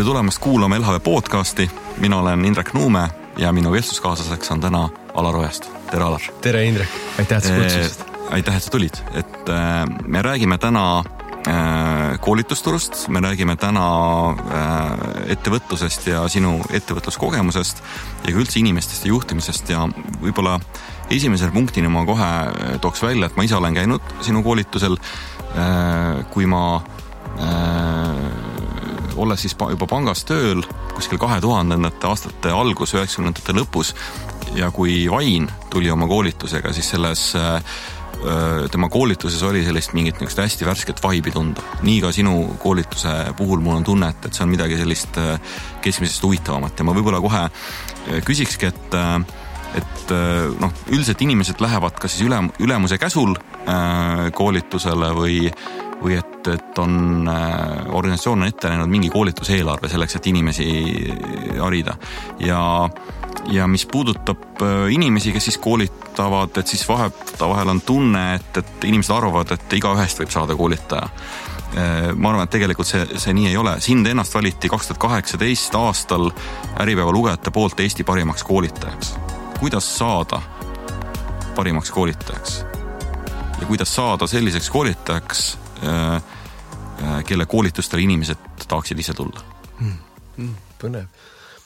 Tere tulemast kuulama LHV podcasti. Mina olen Indrek Nuume ja minu vestluskaaslaseks on täna Alar Ojast. Tere, Alar. Tere, Indrek. Aitäh, et sa kutsusid. Aitäh, et sa tulid. Me räägime täna koolitusturust, me räägime täna ettevõtlusest ja sinu ettevõtluskogemusest ja üldse inimestest ja juhtimisest ja võib-olla esimesel punktini ma kohe tooks välja, et ma ise olen käinud sinu koolitusel, kui ma olles siis juba pangas tööl kuskil 2000. aastate algus, 90. lõpus ja kui Vain tuli oma koolitusega, siis selles tema koolituses oli sellist mingit hästi värsket vibe'i tunda. Nii ka sinu koolituse puhul mul on tunne, et see on midagi sellist keskmisest huvitavamat ja ma võib-olla kohe küsikski, et üldiselt inimesed lähevad kas siis ülemuse käsul koolitusele või et on organisatsioon on ette näinud mingi koolituseelarve selleks, et inimesi harida. Ja mis puudutab inimesi, kes siis koolitavad, et siis vahel on tunne, et inimesed arvavad, et igaühest võib saada koolitaja. Ma arvan, et tegelikult see nii ei ole. Sind ennast valiti 2018 aastal Äripäeva lugejate poolt Eesti parimaks koolitajaks. Kuidas saada parimaks koolitajaks? Ja kuidas saada selliseks koolitajaks, kelle koolitustele inimesed tahaksid ise tulla? Põnev.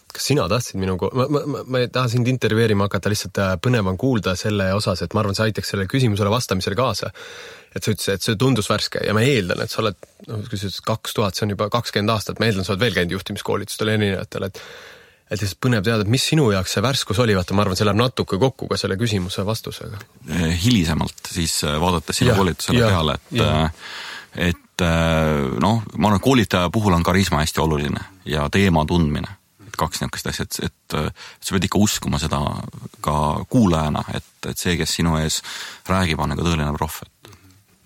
Kas sina tahtsid ma ei taha sind intervjueerima hakata, lihtsalt põnev on kuulda selle osas, et ma arvan, see aitaks selle küsimusele vastamisele kaasa. Et sa ütlesid, et see tundus värske ja ma eeldan, et sa oled, kui sa ütlesid 2000, see on juba 20 aastat, ma eeldan, sa oled veel käinud juhtimiskoolitustel erinevatel, et lihtsalt põnev teada, et mis sinu jaoks see värskus oli, vaata, ma arvan, see läheb natuke kokku ka selle küsimuse vastusega. Hilisemalt siis vaadates sinu koolitusele peale, et ma arvan, koolitaja puhul on karisma hästi oluline ja teema tundmine. Kaks niisugust asja, et sa pead ikka uskuma seda ka kuulajana, et see, kes sinu ees räägib, on nagu tõeline proff.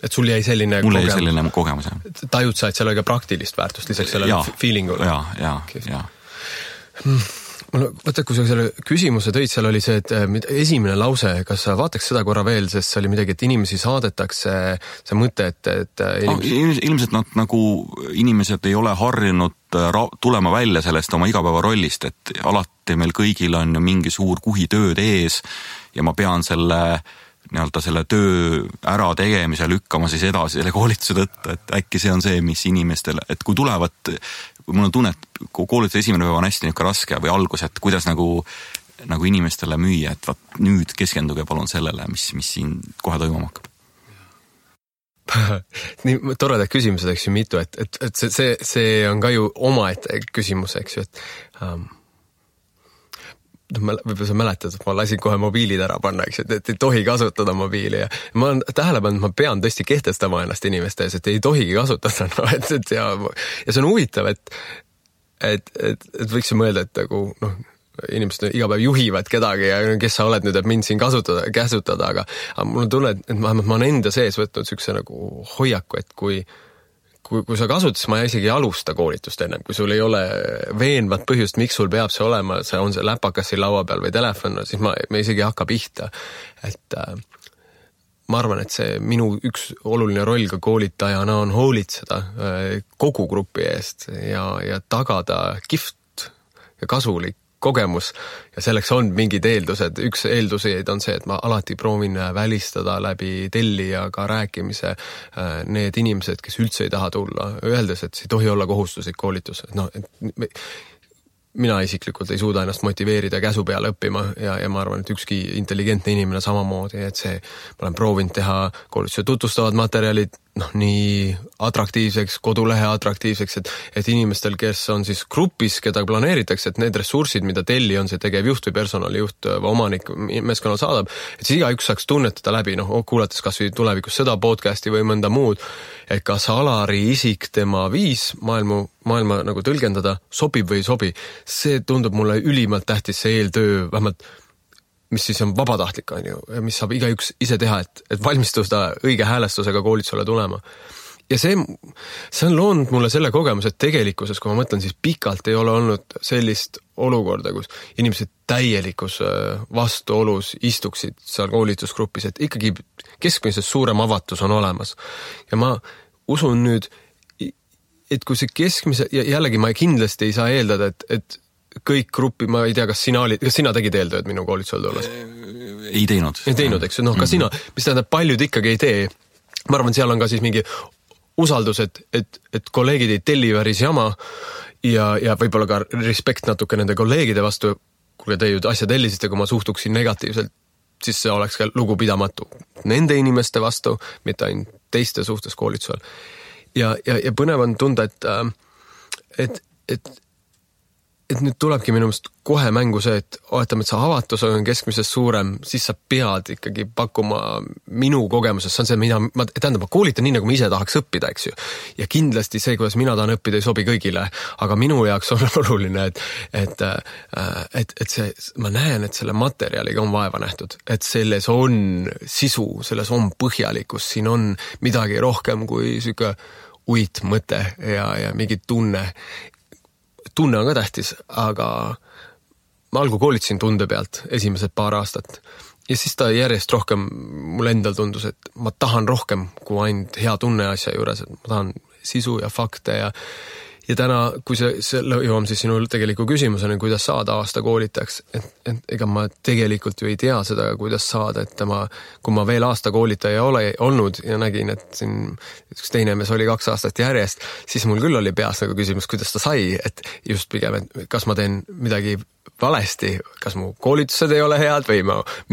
Et sul jäi selline Mulle jäi selline kogemus, jah. Tajud sa, et seal oli ka praktilist väärtust lisaks sellele feelingule? Ja. Võtta, kui sa selle küsimuse tõid, seal oli see, et esimene lause, kas sa vaataks seda korra veel, sest see oli midagi, et inimesi saadetakse, see mõte, et ilmselt nad nagu inimesed ei ole harjunud tulema välja sellest oma igapäeva rollist, et alati meil kõigil on ju mingi suur kuhitööd ees ja ma pean selle töö ära tegemise lükkama siis edasi selle koolituse tõttu, et äkki see on see, mis inimestele, et kui tulevad, mul on tunne, et koolituse esimene päev on hästi niisugune raske või algus, et kuidas nagu inimestele müüa, et nüüd keskenduge palun sellele, mis siin kohe toimuma hakkab. Nii toredad küsimused, eks ju mitu, et see on ka ju omaette küsimus, eks ju, et võib-olla sa mäletad, et ma lasin kohe mobiilid ära panna, eks, et ei tohi kasutada mobiili ja ma olen tähele pannud, et ma pean tõesti kehtestama ennast inimeste ees, et ei tohigi kasutada, ja see on huvitav, et võiks ju mõelda, et nagu, inimesed iga päev juhivad kedagi ja kes sa oled nüüd, et mind siin käsutada, aga mul on tunne, et ma olen enda sees võtnud sükse nagu hoiaku, et kui sa kasutad, ma isegi ei alusta koolitust ennem, kui sul ei ole veenvat põhjust, miks sul peab see olema, see on see läpakas siin laua peal või telefon, siis ma isegi hakka pihta. Et ma arvan, et see minu üks oluline roll ka koolitajana on hoolitseda kogu grupi eest ja tagada kihvt ja kasulik kogemus ja selleks on mingid eeldused. Üks eelduseid on see, et ma alati proovin välistada läbi tellijaga rääkimise need inimesed, kes üldse ei taha tulla, öeldes, et see ei tohi olla kohustuslik koolitus. Mina isiklikult ei suuda ennast motiveerida käsu peale õppima ja ma arvan, et ükski intelligentne inimene samamoodi, et ma olen proovinud teha koolituse tutvustavad materjalid nii atraktiivseks, kodulehe atraktiivseks, et inimestel, kes on siis grupis, keda planeeritakse, et need ressursid, mida telli on see tegevjuht või personalijuht või omanik meeskonnal saadab, et siis igaüks saaks tunnetada läbi, kuulates kas või tulevikus seda podcasti või mõnda muud, et kas Alari isik, tema viis maailma nagu tõlgendada sobib või ei sobi. See tundub mulle ülimalt tähtis, see eeltöö, vähemalt mis siis on vabatahtlik, mis saab igaüks ise teha, et valmistuda õige häälestusega koolitusele tulema. Ja see on loonud mulle selle kogemus, et tegelikkuses, kui ma mõtlen, siis pikalt ei ole olnud sellist olukorda, kus inimesed täielikus vastuolus istuksid seal koolitusgrupis, et ikkagi keskmisest suurem avatus on olemas. Ja ma usun nüüd et kui see keskmise, ja jällegi ma kindlasti ei saa eeldada, et kõik gruppi, ma ei tea, kas sina tegid eeltööd minu koolitusel tulles? Ei teinud. Ei teinud, eks, ka sina, mis tähendab, paljud ikkagi ei tee. Ma arvan, seal on ka siis mingi usaldus, et kolleegid ei telli väris jama ja võib-olla ka respekt natuke nende kolleegide vastu, kui te ju asja tellisite, kui ma suhtuksin negatiivselt, siis see oleks ka lugupidamatu nende inimeste vastu, mitte ainult teiste suhtes koolitusel. Ja põnev on tunda, et nüüd tulebki minu meelest kohe mängu see, et oletame, et see avatus on keskmisest suurem, siis sa pead ikkagi pakkuma minu kogemuses, see on see, ma koolitan nii, nagu ma ise tahaks õppida, eks ju. Ja kindlasti see, kuidas mina tahan õppida, ei sobi kõigile, aga minu jaoks on oluline, et see, ma näen, et selle materjaliga on vaeva nähtud, et selles on sisu, selles on põhjalikkus, siin on midagi rohkem kui siuke uitmõte ja mingi tunne on ka tähtis, aga ma algu koolitasin tunde pealt esimesed paar aastat ja siis ta järjest rohkem mul endal tundus, et ma tahan rohkem kui ainult hea tunne asja juures, et ma tahan sisu ja fakte ja täna, kui see jõuam siis sinu tegeliku küsimuseni, kuidas saada aasta koolitajaks, et ega ma tegelikult ju ei tea seda, kuidas saada, et kui ma veel aasta koolitaja ei ole olnud ja nägin, et siin üks teine mees oli 2 aastat järjest, siis mul küll oli peas nagu küsimus, kuidas ta sai, et just pigem, et kas ma teen midagi valesti, kas mu koolitused ei ole head või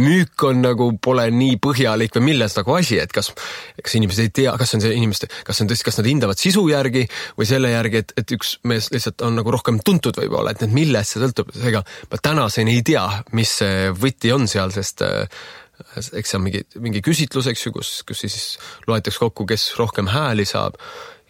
müük on nagu pole nii põhjalik või milles nagu asi, et kas inimesed ei tea, kas nad hindavad sisu järgi või selle järgi, et üks mees lihtsalt on nagu rohkem tuntud võib-olla, et milles see sõltub, ega ma tänaseni ei tea, mis see võti on seal, sest eks see on mingi küsitlus, eks ju, kus siis loetakse kokku, kes rohkem hääli saab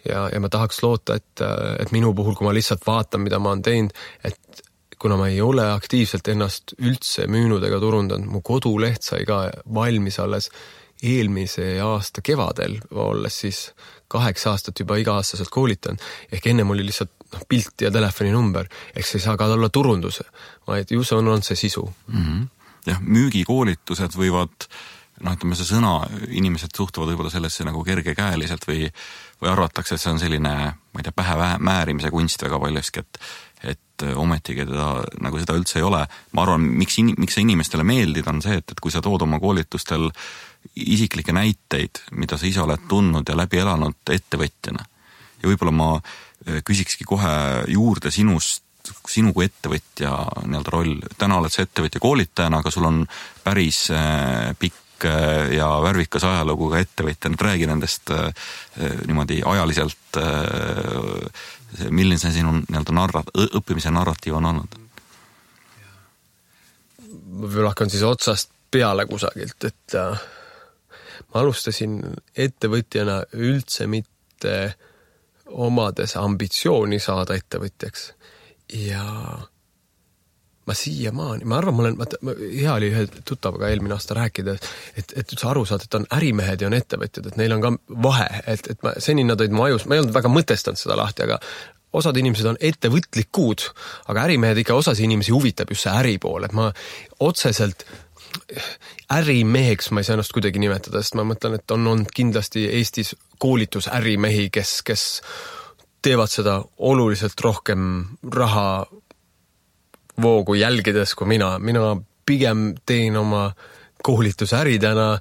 ja ma tahaks loota, et minu puhul, kui ma lihtsalt vaatan, mida ma olen teinud, et kuna ma ei ole aktiivselt ennast üldse müünud ega turundanud, mu koduleht sai ka valmis alles eelmise aasta kevadel, olles siis 8 aastat juba iga-aastaselt koolitan, ehk ennem oli lihtsalt pilt ja telefoninumber, ehk see ei saa ka olla turunduse, vaid ju see on see sisu. Jah, müügikoolitused võivad, ütleme see sõna, inimesed suhtuvad võib-olla sellesse nagu kergekäeliselt või arvatakse, et see on selline, ma ei tea, pähe määrimise kunst väga paljuski, et ometigi nagu seda üldse ei ole. Ma arvan, miks see inimestele meeldib, on see, et kui sa tood oma koolitustel isiklikke näiteid, mida sa ise oled tundnud ja läbi elanud ettevõtjana. Ja võib-olla ma küsikski kohe juurde sinu kui ettevõtja roll. Täna oled sa ettevõtja koolitajana, aga sul on päris pikk ja värvikas ajalugu ka ettevõtja. Nüüd räägi nendest niimoodi ajaliselt, milline see sinu õppimise narratiiv on olnud? Ma hakkan siis otsast peale kusagilt, et ma alustasin ettevõtjana üldse mitte omades ambitsiooni saada ettevõtjaks ja ma siiamaani, ma arvan, hea oli ühe tuttavaga eelmine aasta rääkida, et üldse aru saada, et on ärimehed ja on ettevõtjad, et neil on ka vahe, et seni nad olid mu ajus, ma ei olnud väga mõtestanud seda lahti, aga osad inimesed on ettevõtlikud, aga ärimehed ikka osasi inimesi huvitab just see äri pool, et ma otseselt ärimeheks ma ei saa ennast kuidagi nimetada, sest ma mõtlen, et on olnud kindlasti Eestis koolitusärimehi, kes teevad seda oluliselt rohkem raha voogu jälgides kui mina pigem teen oma koolitusäridena,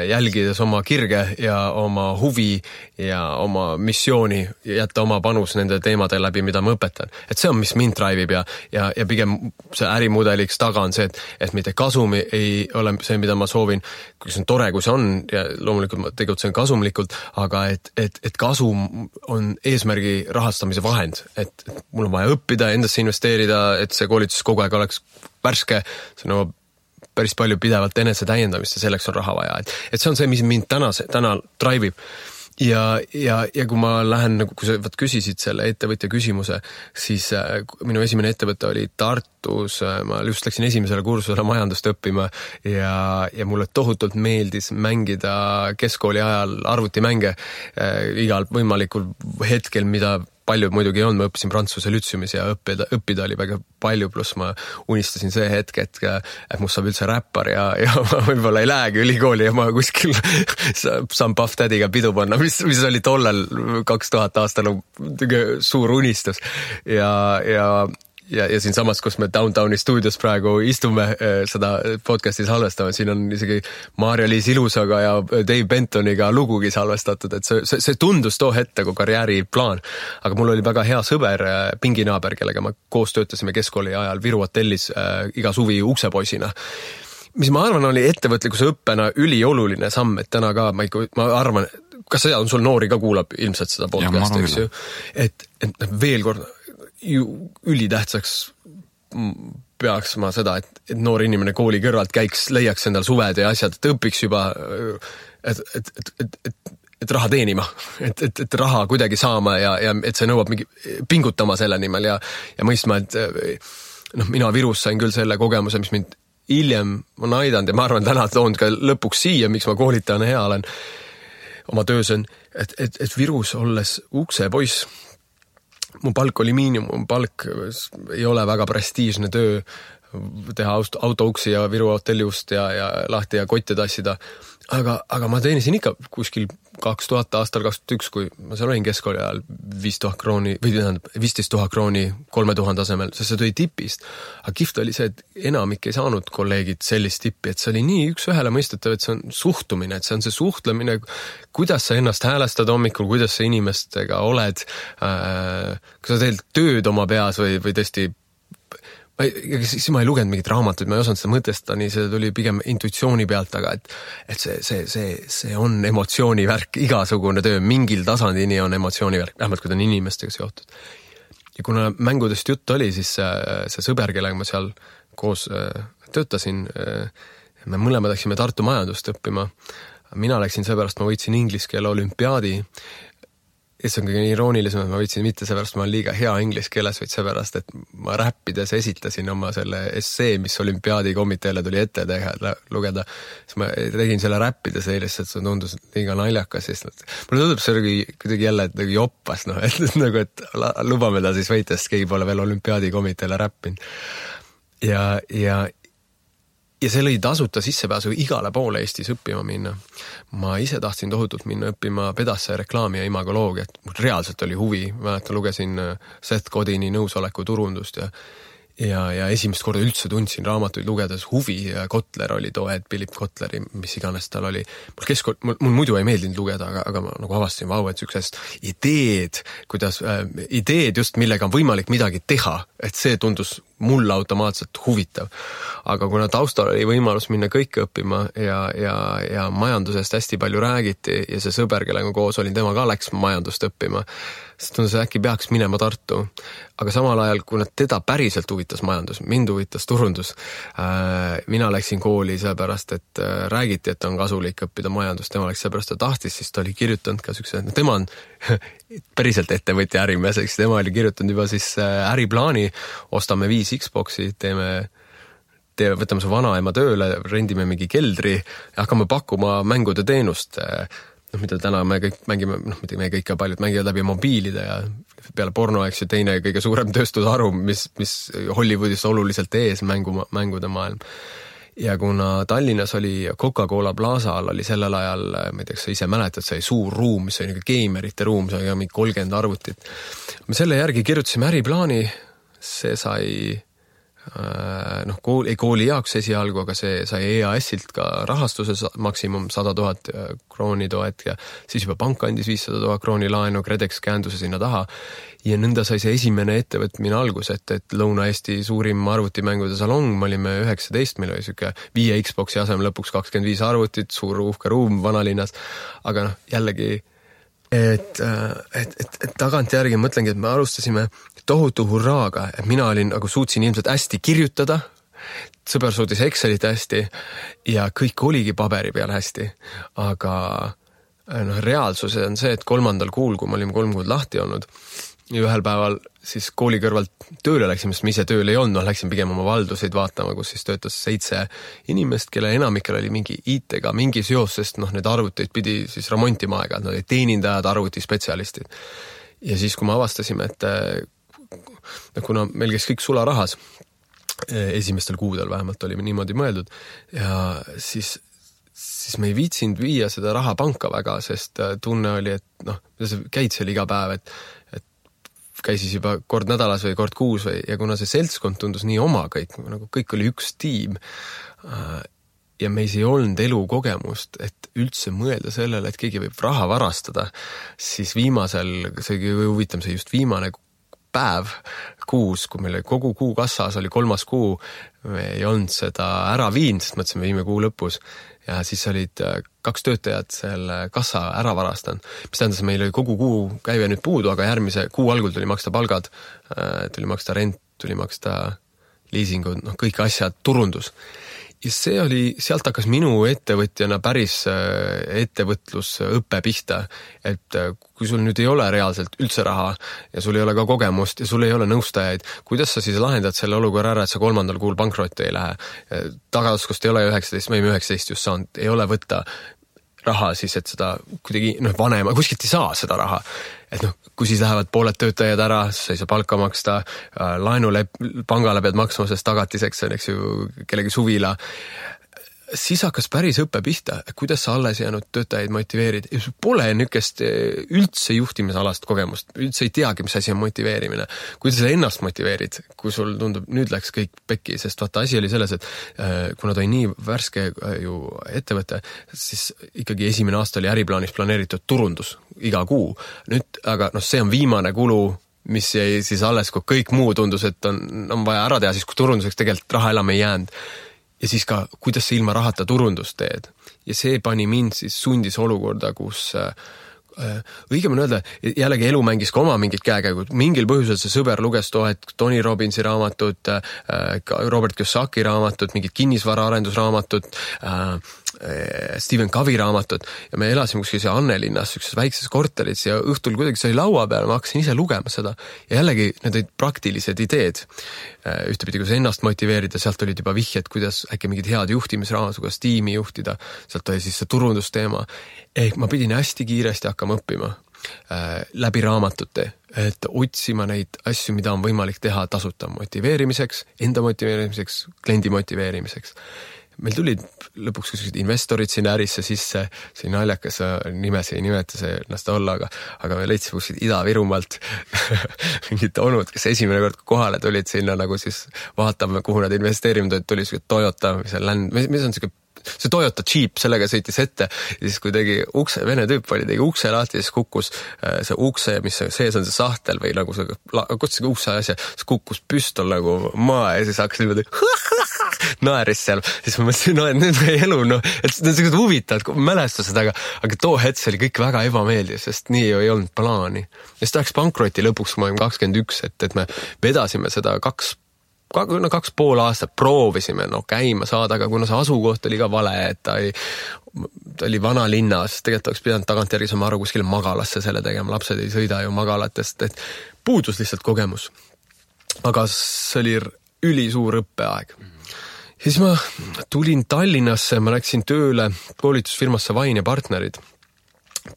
jälgides oma kirge ja oma huvi ja oma missiooni ja jätta oma panus nende teemade läbi, mida ma õpetan. Et see on, mis mind drive'ib ja pigem see ärimudeliks taga on see, et mitte kasum ei ole see, mida ma soovin, kui see on tore, kui see on ja loomulikult ma tegutsen kasumlikult, aga et kasum on eesmärgi rahastamise vahend, et mul on vaja õppida, endasse investeerida, et see koolitus kogu aeg oleks värske, see nõuab päris palju pidevalt enese täiendamist ja selleks on raha vaja. Et see on see, mis mind täna drive'ib. Ja kui ma lähen, kui sa küsisid selle ettevõtja küsimuse, siis minu esimene ettevõte oli Tartus, ma just läksin esimesele kursusele majandust õppima ja mulle tohutult meeldis mängida keskkooli ajal arvutimänge igal võimalikul hetkel, mida palju muidugi ei olnud, ma õppisin Prantsuse lütseumis ja õppida oli väga palju, pluss ma unistasin see hetk, et must saab üldse räppar ja ma võib-olla ei lähegi ülikooli ja ma kuskil saan Puff Daddy'ga pidu panna, mis oli tollel 2000 aastal suur unistus ja siin samas, kus me Downtowni stuudios praegu istume seda podcasti salvestame, siin on isegi Maarja-Liis Ilusaga ja Dave Bentoniga lugugi salvestatud, et see tundus too hetk nagu karjääriplaan. Aga mul oli väga hea sõber, pinginaaber, kellega me koos töötasime keskkooli ajal Viru hotellis iga suvi uksepoisina. Mis ma arvan, oli ettevõtlikkuse õppena ülioluline samm, et täna ka ma arvan, kas sa sul noori ka kuulab ilmselt seda podcasti, eks ju, et veel kord ülitähtsaks peaks ma seda, et noor inimene kooli kõrvalt käiks, leiaks endal suved ja asjad, et õpiks juba, et raha teenima, et raha kuidagi saama ja et see nõuab mingi pingutama selle nimel ja mõistma, et mina Virus sain küll selle kogemuse, mis mind hiljem on aidanud ja ma arvan, täna toon ka lõpuks siia, miks ma koolitajana hea olen oma töös on, et Virus olles uksepoiss, mu palk oli miinimumpalk, ei ole väga prestiižne töö teha autouksi ja Viru hotelliust ja lahti ja kotte tassida. Aga ma teenisin ikka kuskil 2000 aastal 2001, kui ma seal olin keskkooli ajal 5000 krooni, või 15 000 krooni 3000 asemel, sest see tuli tipist. Aga kihvt oli see, et enamik ei saanud kolleegid sellist tippi, et see oli nii üks ühele mõistetav, et see on suhtumine, et see on see suhtlemine, kuidas sa ennast häälestad hommikul, kuidas sa inimestega oled, kas sa teed tööd oma peas või tõesti siis ma ei lugenud mingit raamatuid, ma ei osanud seda mõtestada, nii see tuli pigem intuitsiooni pealt, aga et see on emotsioonivärk, igasugune töö, mingil tasandini on emotsioonivärk, vähemalt kui ta on inimestega seotud. Ja kuna mängudest jutt oli, siis see sõber, kellega ma seal koos töötasin, me mõlemad läksime Tartu majandust õppima. Mina läksin seepärast, ma võitsin inglise keele olümpiaadi. Ja see on kõige iroonilisem, et ma võitsin mitte seepärast, ma olen liiga hea inglise keeles, vaid seepärast, et ma räppides esitasin oma selle essee, mis olümpiaadikomiteele tuli ette lugeda. Siis ma tegin selle räppides eilest, et see tundus liiga naljakas. Mulle tundub see kuidagi jälle joppas, et lubame ta siis võita, sest keegi pole veel olümpiaadikomiteele räppinud. Ja see lõi tasuta sissepääsu igale poole Eestis õppima minna. Ma ise tahtsin tohutult minna õppima pedasse reklaami ja imagoloogiat. Mul reaalselt oli huvi. Mäletan, lugesin Seth Godini nõusoleku turundust ja esimest korda üldse tundsin raamatuid lugedes huvi ja Kotler oli too hetk, Philip Kotleri, mis iganes tal oli. Mul muidu ei meeldinud lugeda, aga ma nagu avastasin, et sükesest ideed just, millega on võimalik midagi teha, et see tundus mulle automaatselt huvitav. Aga kuna taustal oli võimalus minna kõike õppima ja majandusest hästi palju räägiti ja see sõber, kellega koos olin, tema ka läks majandust õppima, siis tundus, äkki peaks minema Tartu. Aga samal ajal, kuna teda päriselt huvitas majandus, mind huvitas turundus, mina läksin kooli seepärast, et räägiti, et on kasulik õppida majandust, tema läks seepärast, et tahtis, siis ta oli kirjutanud ka sükse, tema on päriselt ettevõtja ärimees, eks tema oli kirjutanud juba siis äriplaani, ostame 5 Xboxi, võtame su vanaema tööle, rendime mingi keldri ja hakkame pakkuma mängude teenust, mida täna me kõik mängime, mitte me kõik ja paljud mängivad läbi mobiilide ja peale porno, eks ju, teine kõige suurem tööstusharu, mis Hollywoodis oluliselt ees mängude maailm. Ja kuna Tallinnas oli Coca-Cola Plaza all, oli sellel ajal, ma ei tea, sa ise mäletad, see suur ruum, mis oli geimerite ruum, see oli mingi 30 arvutit. Me selle järgi kirjutasime äriplaani, see sai kooli jaoks esialgu, aga see sai EAS-ilt ka rahastuse maksimum 100 000 krooni toet ja siis juba pank andis 500 000 krooni laenu, Kredex käenduse sinna taha ja nõnda sai see esimene ettevõtmine algus, et Lõuna-Eesti suurim arvutimängude salong, me olime 19, meil oli siuke 5 Xboxi asemel lõpuks 25 arvutit, suur uhke ruum vanalinnas, aga jällegi et tagantjärgi mõtlengi, et me alustasime tohutu hurraaga, et mina suutsin ilmselt hästi kirjutada, sõber suutis Excelit hästi ja kõik oligi paberi peal hästi, aga reaalsus on see, et 3. kuul, kui me olime 3 kuud lahti olnud ja ühel päeval siis kooli kõrvalt tööle läksime, sest me ise tööl ei olnud, läksin pigem oma valduseid vaatama, kus siis töötas 7 inimest, kelle enamikel oli mingi IT-ga mingi seos, sest need arvuteid pidi siis remontima aega, nad olid teenindajad, arvutispetsialistid. ja siis, kui me avastasime, et kuna meil käis kõik sularahas, esimestel kuudel vähemalt olime niimoodi mõeldud ja siis me ei viitsinud viia seda raha panka väga, sest tunne oli, et sa käid seal iga päev, et käisis juba kord nädalas või kord kuus ja kuna see seltskond tundus nii oma kõik oli üks tiim ja meis ei olnud elukogemust, et üldse mõelda sellele, et keegi võib raha varastada, siis viimasel, see huvitav, see just viimane päev kuus, kui meil kogu kuu kassas oli 3. kuu, me ei olnud seda ära viinud, sest mõtlesime viime kuu lõpus ja siis olid 2 töötajad selle kassa ära varastanud, mis tähendas, meil oli kogu kuu käive nüüd puudu, aga järgmise kuu algul tuli maksta palgad, tuli maksta rent, tuli maksta liisingud, kõik asjad, turundus. Ja see oli, sealt hakkas minu ettevõtjana päris ettevõtlusõppe pihta, et kui sul nüüd ei ole reaalselt üldse raha ja sul ei ole ka kogemust ja sul ei ole nõustajaid, kuidas sa siis lahendad selle olukorra ära, et sa 3. kuul pankrotti ei lähe? Tagauskust ei ole 19, me 19 just saanud, ei ole võtta raha siis, et seda kuidagi vanema, kuskilt ei saa seda raha. Et kui siis lähevad pooled töötajad ära, sa ei saa palka maksta, laenule pangale pead maksma, sest tagatiseks on, eks ju, kellegi suvila. Siis hakkas päris õppe pihta, kuidas sa alles jäänud töötajaid motiveerid. Ja sul pole nükest üldse juhtimisalast kogemust, üldse ei teagi, mis asi on motiveerimine. Kuidas sa ennast motiveerid, kui sul tundub, nüüd läks kõik pekki, sest vaata, asi oli selles, et kuna ta oli nii värske ju ettevõte, siis ikkagi esimene aasta oli äriplaanis planeeritud turundus iga kuu. Nüüd, aga see on viimane kulu, mis jäi siis alles, kui kõik muu tundus, et on vaja ära teha, siis kui turunduseks tegelikult raha enam ei jäänud. Ja siis ka, kuidas sa ilma rahata turundust teed. Ja see pani mind siis sundis olukorda, kus õigem on öelda, jällegi elu mängis ka oma mingid käekäigud. Mingil põhjusel see sõber luges Tony Robbinsi raamatut, Robert Kiyosaki raamatut, mingid kinnisvara arendusraamatut, Stephen Covey raamatut ja me elasime kuskil Annelinnas ükses väikses korteris ja õhtul kuidagi sai laua peal, ma hakkasin ise lugema seda ja jällegi need olid praktilised ideed. Ühtepidi, kuidas ennast motiveerida, sealt olid juba vihjed, kuidas äkki mingid head juhtimisraamad, kuidas tiimi juhtida, sealt oli siis see turundusteema. Ehk ma pidin hästi kiiresti hakkama õppima läbi raamatute, et otsima neid asju, mida on võimalik teha tasuta motiveerimiseks, enda motiveerimiseks, kliendi motiveerimiseks. Meil tulid lõpuks kuskil investorid sinna ärisse sisse, see naljakas nimesi ei nimeta see ennast olla, aga me leidsime kuskil Ida-Virumaalt mingid onud, kes esimene kord kohale tulid sinna nagu siis vaatame, kuhu nad investeerivad, tuli Toyota, mis on see Toyota Jeep, sellega sõitis ette ja siis kui tegi ukse, vene tüüp oli, tegi ukse lahti ja siis kukkus see ukse, mis sees on see sahtel või nagu see, kutsugi ukse asja, siis kukkus püstol nagu maa ja siis hakkas niimoodi naeris seal, siis ma mõtlesin, et nüüd meie elu, et need on sellised huvitavad mälestused, aga too hetk oli kõik väga ebameeldiv, sest nii ju ei olnud plaani. Ja siis ta läks pankroti lõpuks, kui ma olin 21, et me vedasime seda 2,5 aastat proovisime käima saada, aga kuna see asukoht oli ka vale, et ta oli vana linnas, tegelikult oleks pidanud tagantjärgi saama aru kuskile magalasse selle tegema, lapsed ei sõida ju magalatest, et puudus lihtsalt kogemus. Aga see oli ülisuur õppeaeg. Siis ma tulin Tallinnasse, ma läksin tööle koolitusfirmasse Vain ja partnerid.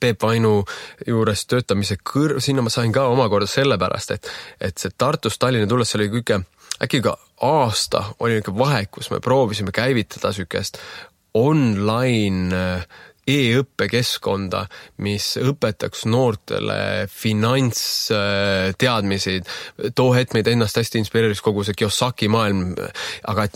Peep Vainu juures töötamise sinna ma sain ka omakorda sellepärast, et see Tartust Tallinna tulles oli kõige äkki ka aasta oli ikka vahe, kus me proovisime käivitada sükest online e-õppekeskkonda, mis õpetaks noortele finantsteadmisi. Too hetk meid ennast hästi inspireeris kogu see Kiyosaki maailm, aga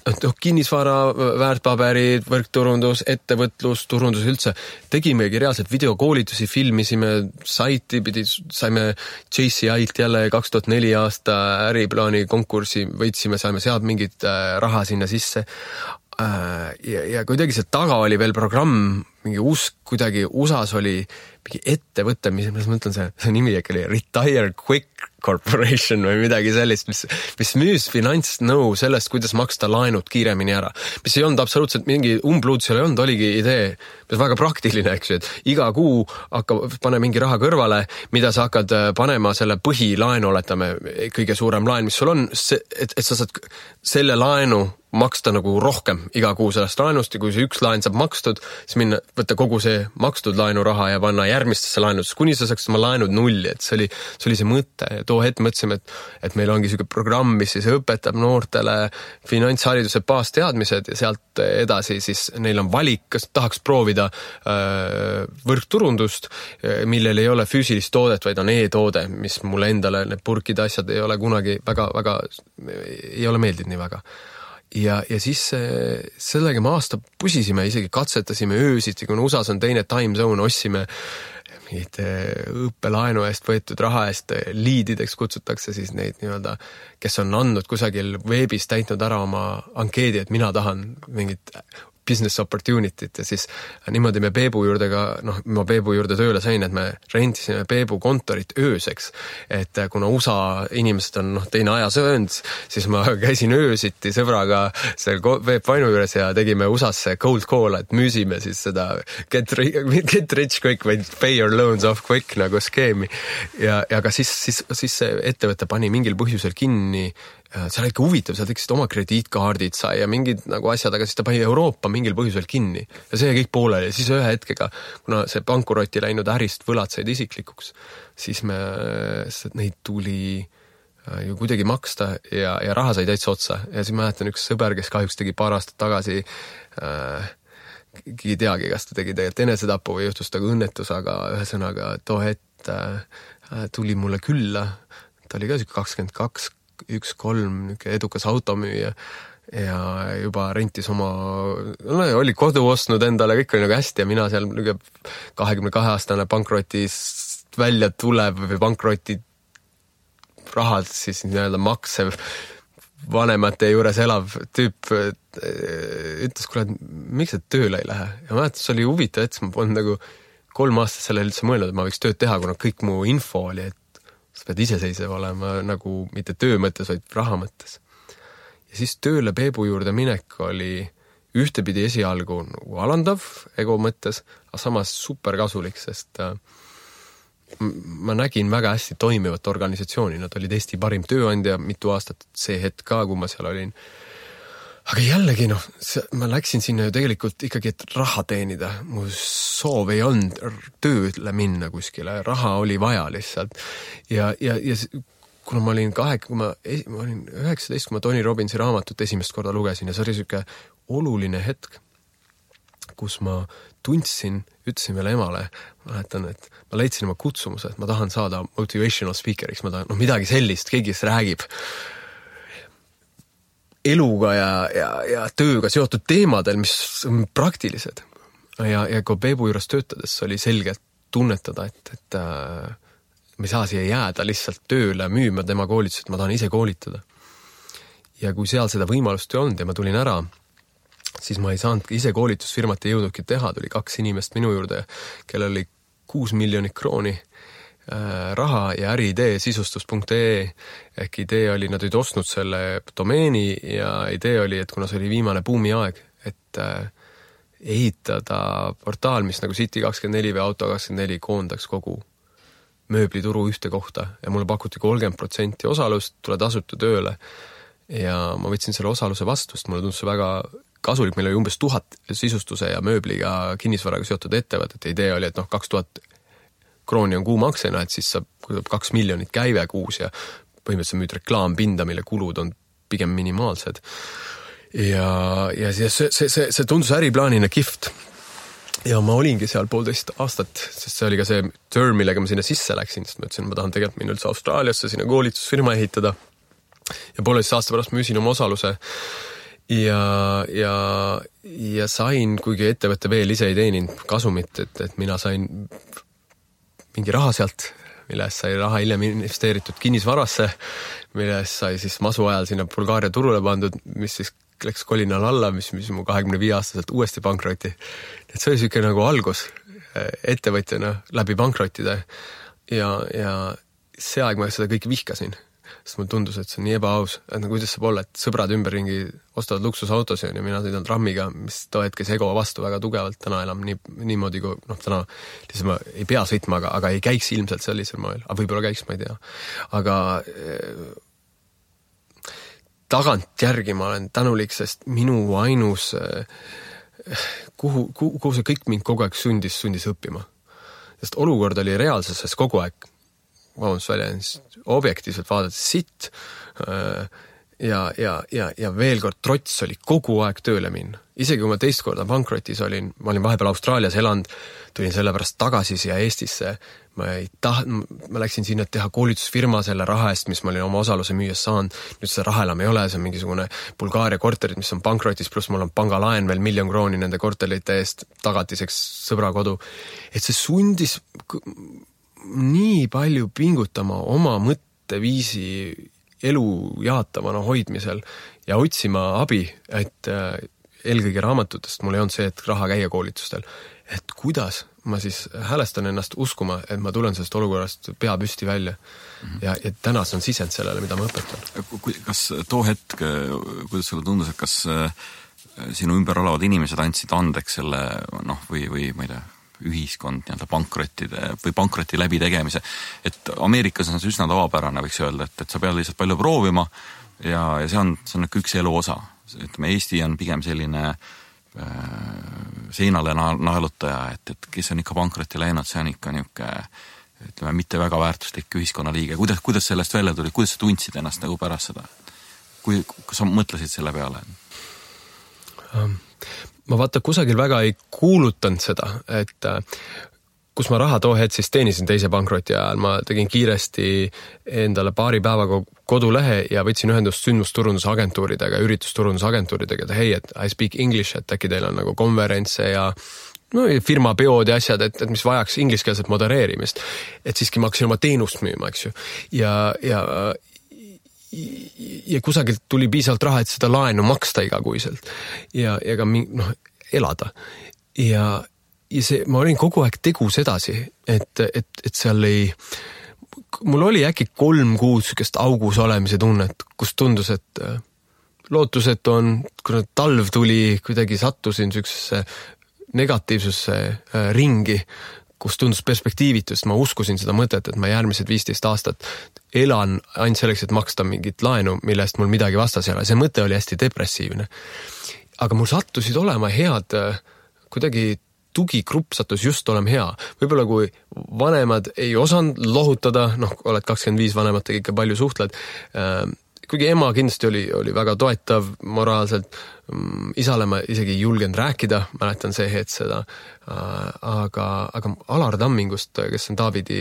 kinnisvara, väärtpaberid, võrkturundus, ettevõtlus, turundus üldse. Tegimegi reaalselt videokoolitusi, filmisime, saime JCI-lt jälle 2004 aasta äriplaani konkursi, võitsime, saime sealt mingit raha sinna sisse. Ja kuidagi see taga oli veel programm, mingi kuidagi USAs oli mingi ettevõte, mis ma mõtlen, see nimi äkki oli Retire Quick Corporation või midagi sellist, mis müüs finantsnõu sellest, kuidas maksta laenud kiiremini ära. Mis ei olnud absoluutselt mingi umbluud, seal ei olnud, oligi idee, mis väga praktiline, eks ju, et iga kuu pane mingi raha kõrvale, mida sa hakkad panema selle põhilaenu, oletame, kõige suurem laen, mis sul on, et sa saad selle laenu maksta nagu rohkem iga kuu sellest laenust ja kui see üks laen saab makstud, siis minna, võtta kogu see makstud laenuraha ja panna järgmistesse laenudesse, kuni sa saaks oma laenud nulli, et see oli see mõte ja too hetk mõtlesime, et meil ongi selline programm, mis siis õpetab noortele finantshariduse baasteadmised ja sealt edasi siis neil on valik, kas tahaks proovida võrkturundust, millel ei ole füüsilist toodet, vaid on e-toode, mis mulle endale need purkide asjad ei ole kunagi väga ei ole meeldinud nii väga. Ja siis sellega me aasta pusisime, isegi katsetasime öösiti, kuna USAs on teine time zone, ossime mingid õppelaenu eest võetud raha eest liidideks kutsutakse siis neid nii-öelda, kes on andnud kusagil veebis täitnud ära oma ankeedi, et mina tahan mingit business opportunity't ja siis niimoodi me Peebu juurde ma Peebu juurde tööle sain, et me rentisime Peebu kontorit ööseks, et kuna USA inimesed on teine ajasöönd, siis ma käisin öösiti sõbraga seal Peep Vainu juures ja tegime USA-sse cold call, et müüsime siis seda get rich quick, vaid pay your loans off quick nagu skeemi ja ka siis see ettevõte pani mingil põhjusel kinni. See oli ikka huvitav, seal tekkisid oma krediitkaardid sai ja mingid nagu asjad, aga siis ta pani Euroopa mingil põhjusel kinni ja see kõik pooleli ja siis ühe hetkega, kuna see pankurotti läinud ärist võlad said isiklikuks, siis neid tuli ju kuidagi maksta ja raha sai täitsa otsa ja siis mäletan üks sõber, kes kahjuks tegi paar aastat tagasi ei teagi, kas ta tegi tegelikult enesetapu või juhtus taga õnnetus, aga ühesõnaga too hetk tuli mulle külla, ta oli ka 22 1-3 edukas automüüja ja juba rentis oli kodu ostnud endale, kõik oli nagu hästi ja mina seal 22-aastane pankrotist välja tulev või pankroti rahad siis nii-öelda maksev vanemate juures elav tüüp ütles, kuule, miks sa tööle ei lähe? Ja mäletan, see oli huvitav, et ma polnud nagu 3 aastat selle üldse mõelnud, et ma võiks tööd teha, kuna kõik mu info oli, et sa pead iseseisev olema nagu mitte töö mõttes, vaid raha mõttes. Ja siis tööle Peebu juurde minek oli ühtepidi esialgu nagu alandav ego mõttes, aga samas super kasulik, sest ma nägin väga hästi toimivat organisatsiooni, nad olid Eesti parim tööandja mitu aastat, see hetk ka, kui ma seal olin. Aga jällegi, ma läksin sinna ju tegelikult ikkagi, et raha teenida. Mu soov ei olnud tööle minna kuskile, raha oli vaja lihtsalt. Ja kuna ma olin 19, kui ma Tony Robbinsi raamatut esimest korda lugesin ja see oli selline oluline hetk, kus ma tundsin, ütlesin veel emale, mäletan, et ma leidsin oma kutsumuse, et ma tahan saada motivational speakeriks, ma tahan midagi sellist, keegi kes räägib eluga ja tööga seotud teemadel, mis on praktilised. Ja kui Peebu juures töötades oli selgelt tunnetada, et me ei saa siia jääda lihtsalt tööle müüma tema koolitus, et ma tahan ise koolitada. Ja kui seal seda võimalust ei olnud ja ma tulin ära, siis ma ei saanud ise koolitusfirmat ei jõudnudki teha, tuli 2 inimest minu juurde, kellel oli 6 miljonit krooni raha ja äriidee sisustus.ee ehk idee oli, nad olid ostnud selle domeeni ja idee oli, et kuna see oli viimane buumi aeg, et ehitada portaal, mis nagu City24 või Auto24 koondaks kogu mööblituru ühte kohta ja mulle pakuti 30% osalust, tule tasuta tööle ja ma võtsin selle osaluse vastu, sest mulle tundus see väga kasulik, meil oli umbes 1000 sisustuse ja mööbliga kinnisvaraga seotud ettevõtet ja idee oli, et 2000 krooni on kuu maksena, et siis saab 2 miljonit käive kuus ja põhimõtteliselt müüd reklaampinda, mille kulud on pigem minimaalsed. Ja see tundus äriplaanina kihvt. Ja ma olingi seal 1,5 aastat, sest see oli ka see term, millega ma sinna sisse läksin, sest ma ütlesin, ma tahan tegelikult minna üldse Austraaliasse sinna koolitusfirma ehitada. Ja 1,5 aasta pärast müüsin oma osaluse ja sain, kuigi ettevõtte veel ise ei teeninud kasumit, et mina sain mingi raha sealt, millest sai raha hiljem investeeritud kinnisvarasse, millest sai siis masu ajal sinna Bulgaaria turule pandud, mis siis läks kolinal alla, mis mu 25-aastaselt uuesti pankroti. Et see oli selline nagu algus ettevõtjana läbi pankrotide ja see aeg ma seda kõik vihkasin, sest mulle tundus, et see on nii ebaaus, et nagu kuidas saab olla, et sõbrad ümberringi ostavad luksusautosi ja mina sõidan trammiga, mis too hetkes ego vastu väga tugevalt, täna enam niimoodi, kui täna lihtsalt ma ei pea sõitma, aga ei käiks ilmselt sellisel moel, aga võib-olla käiks, ma ei tea. Aga tagantjärgi ma olen tänulik, sest minu ainus, kuhu see kõik mind kogu aeg sundis õppima. Sest olukord oli reaalsuses kogu aeg, objektiivselt vaadates sitt ja veel kord trots oli kogu aeg tööle minna. Isegi kui ma teist korda pankrotis olin, ma olin vahepeal Austraalias elanud, tulin sellepärast tagasi siia Eestisse, ma läksin sinna teha koolitusfirma selle raha eest, mis ma olin oma osaluse müües saanud, nüüd seda raha enam ei ole, see on mingisugune Bulgaaria korterid, mis on pankrotis, pluss mul on pangalaen veel 1 miljon krooni nende korterite eest tagatiseks sõbrakodu, et see sundis nii palju pingutama oma mõtteviisi elu jaatavana hoidmisel ja otsima abi, et eelkõige raamatutest mul ei olnud see, et raha käia koolitustel. Et kuidas ma siis häälestan ennast uskuma, et ma tulen sellest olukorrast pea püsti välja ja tänas on sisend sellele, mida ma õpetan. Kas too hetk, kuidas sulle tundus, et kas sinu ümber olevad inimesed andsid andeks selle, või ma ei tea, ühiskond nii-öelda pankrottide või pankroti läbitegemise, et Ameerikas on see üsna tavapärane, võiks öelda, et sa pead lihtsalt palju proovima ja see on üks elu osa. Ütleme, Eesti on pigem selline seinale naelutaja, et kes on ikka pankrotti läinud, see on ikka niisugune, ütleme, mitte väga väärtuslik ühiskonnaliige. Kuidas sellest välja tuli? Kuidas sa tundsid ennast nagu pärast seda? Kas sa mõtlesid selle peale? Ma vaata kusagil väga ei kuulutanud seda, et kus ma raha too hetk siis teenisin teise pankroti ajal, ma tegin kiiresti endale paari päevaga kodulehe ja võtsin ühendust sündmusturundusagentuuridega, üritusturundusagentuuridega, et hei, et I speak English, et äkki teil on nagu konverentse ja firma peod ja asjad, et mis vajaks ingliskeelset modereerimist. Et siiski ma hakkasin oma teenust müüma, eks ju. Ja kusagilt tuli piisavalt raha, et seda laenu maksta igakuiselt ja ka elada. Ja see, ma olin kogu aeg tegus edasi, et seal mul oli äkki 3 kuud sükest augus olemise tunnet, kus tundus, et lootusetu on, kui talv tuli, kuidagi sattusin süksesse negatiivsusse ringi, kus tundus perspektiivitust, ma uskusin seda mõtet, et ma järgmised 15 aastat elan ainult selleks, et maksta mingit laenu, millest mul midagi vastas ei ole. See mõte oli hästi depressiivne. Aga mul sattusid olema head, kuidagi tugigrupp sattus just olema hea. Võib-olla kui vanemad ei osanud lohutada, oled 25 vanematega ikka palju suhtled, kuigi ema kindlasti oli väga toetav moraalselt, isale ma isegi ei julgenud rääkida, mäletan see hetk seda, aga Alar Tammingust, kes on Taavidi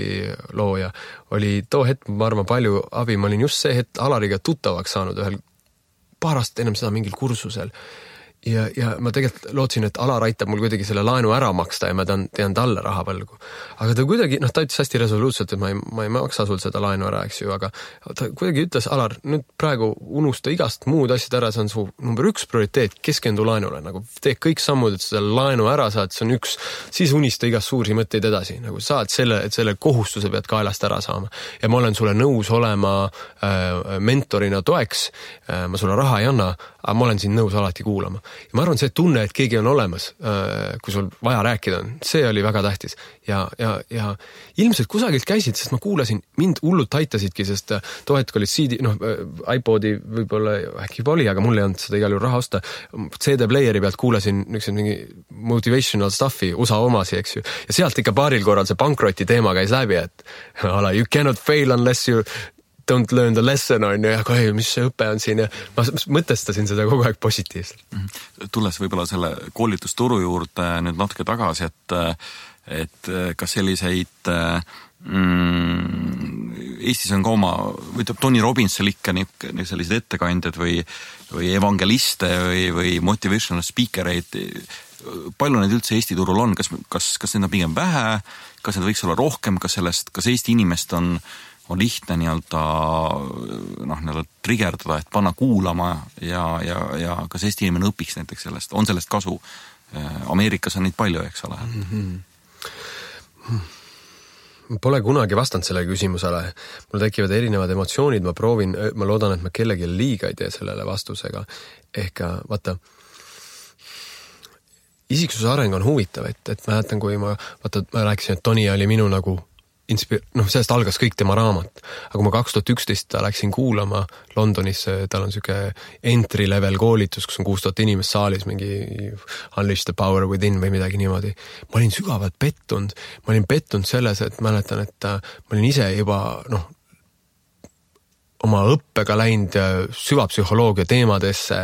looja, oli too hetk, ma arvan, palju abi, ma olin just see hetk Alariga tuttavaks saanud ühel paar aastat ennem seda mingil kursusel. Ja ma tegelikult lootsin, et Alar aitab mul kuidagi selle laenu ära maksta ja ma tean talle raha võlgu. Aga ta kuidagi, ta ütles hästi resoluutselt, et ma ei maksa sul seda laenu ära, eks ju, aga ta kuidagi ütles, Alar, nüüd praegu unusta igast muud asjad ära, see on su number 1 prioriteet, keskendu laenule, nagu tee kõik sammud, et seda laenu ära saad, see on üks, siis unista igast suuri mõtteid edasi, nagu saad et selle kohustuse pead kaelast ära saama. Ja ma olen sulle nõus olema mentorina toeks, ma sulle raha ei anna, aga ma olen siin nõus alati kuulama. Ja ma arvan, see tunne, et keegi on olemas, kui sul vaja rääkida on, see oli väga tähtis. Ja ilmselt kusagilt käisid, sest ma kuulasin, mind hullult aitasidki, sest too hetk olid CD, iPodi võib-olla äkki juba oli, aga mul ei olnud seda igal juhul raha osta. CD-playeri pealt kuulasin mingi motivational stuffi, USA omasi, eks ju. Ja sealt ikka paaril korral see pankroti teema käis läbi, et you cannot fail unless you don't learn the lesson on ja mis see õpe on siin ja ma mõtestasin seda kogu aeg positiivselt. Tulles võib-olla selle koolitusturu juurde nüüd natuke tagasi, et kas selliseid Eestis on ka oma, võtab Tony Robbinsil ikka sellised ettekandjad või evangeliste või motivational speakereid, palju neid üldse Eesti turul on, kas neid on pigem vähe, kas need võiks olla rohkem, kas Eesti inimest on lihtne nii-öelda trigerdada, et panna kuulama ja kas Eesti inimene õpiks näiteks sellest, on sellest kasu? Ameerikas on neid palju, eks ole? Pole kunagi vastanud selle küsimusele. Mul tekivad erinevad emotsioonid, ma loodan, et ma kellegi liiga ei tee sellele vastusega. Ehk vaata, isiksuse areng on huvitav, et mäletan, kui ma rääkisin, et Toni oli minu nagu sellest algas kõik tema raamat. Aga kui ma 2011 läksin kuulama Londonisse, tal on siuke entry level koolitus, kus on 6000 inimest saalis, mingi Unleash the Power Within või midagi niimoodi. Ma olin sügavalt pettunud. Ma olin pettunud selles, et mäletan, et ma olin ise juba, oma õppega läinud süvapsühholoogia teemadesse,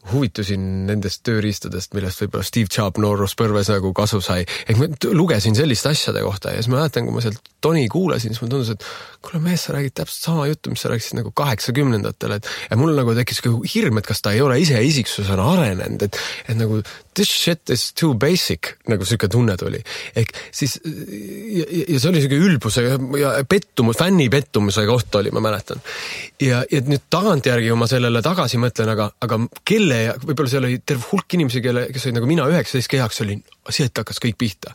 huvitusin nendest tööriistadest, millest võib-olla Steve Jobs nooruspõlves nagu kasu sai. Ma lugesin selliste asjade kohta ja siis ma mäletan, kui ma sealt Toni kuulasin, siis ma tundus, et kuule mees, sa räägid täpselt sama juttu, mis sa rääkisid nagu 80-ndatel, ja mul nagu tekkis hirm, et kas ta ei ole ise isiksusena arenenud, et nagu this shit is too basic, nagu selline tunne tuli. Ehk siis, ja see oli selline ülbuse ja pettumus, fänni pettumuse koht oli, ma mäletan. Ja nüüd tagantjärgi, kui ma sellele tagasi mõtlen, aga kelle, võib-olla seal oli terve hulk inimesi, kes olid nagu mina 19 kehaks, oli sealt hakkas kõik pihta.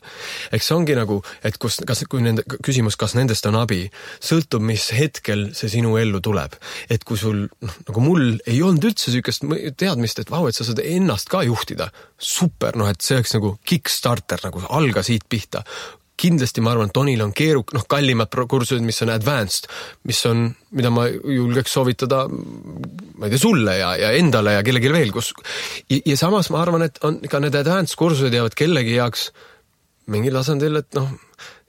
Eks see ongi nagu, et kui nende küsimus, kas nendest on abi, sõltub, mis hetkel see sinu ellu tuleb. Et kui sul, nagu mul ei olnud üldse sükest teadmist, et vau, et sa saad ennast ka juhtida. Super, et see oleks nagu kickstarter, nagu alga siit pihta. Kindlasti ma arvan, et Tonil on kallimad kursused, mis on advanced, mida ma julgeks soovitada, ma ei tea, sulle ja endale ja kellegi veel, ja samas ma arvan, et on ka need advanced kursused jäävad kellegi jaoks mingil tasandil, et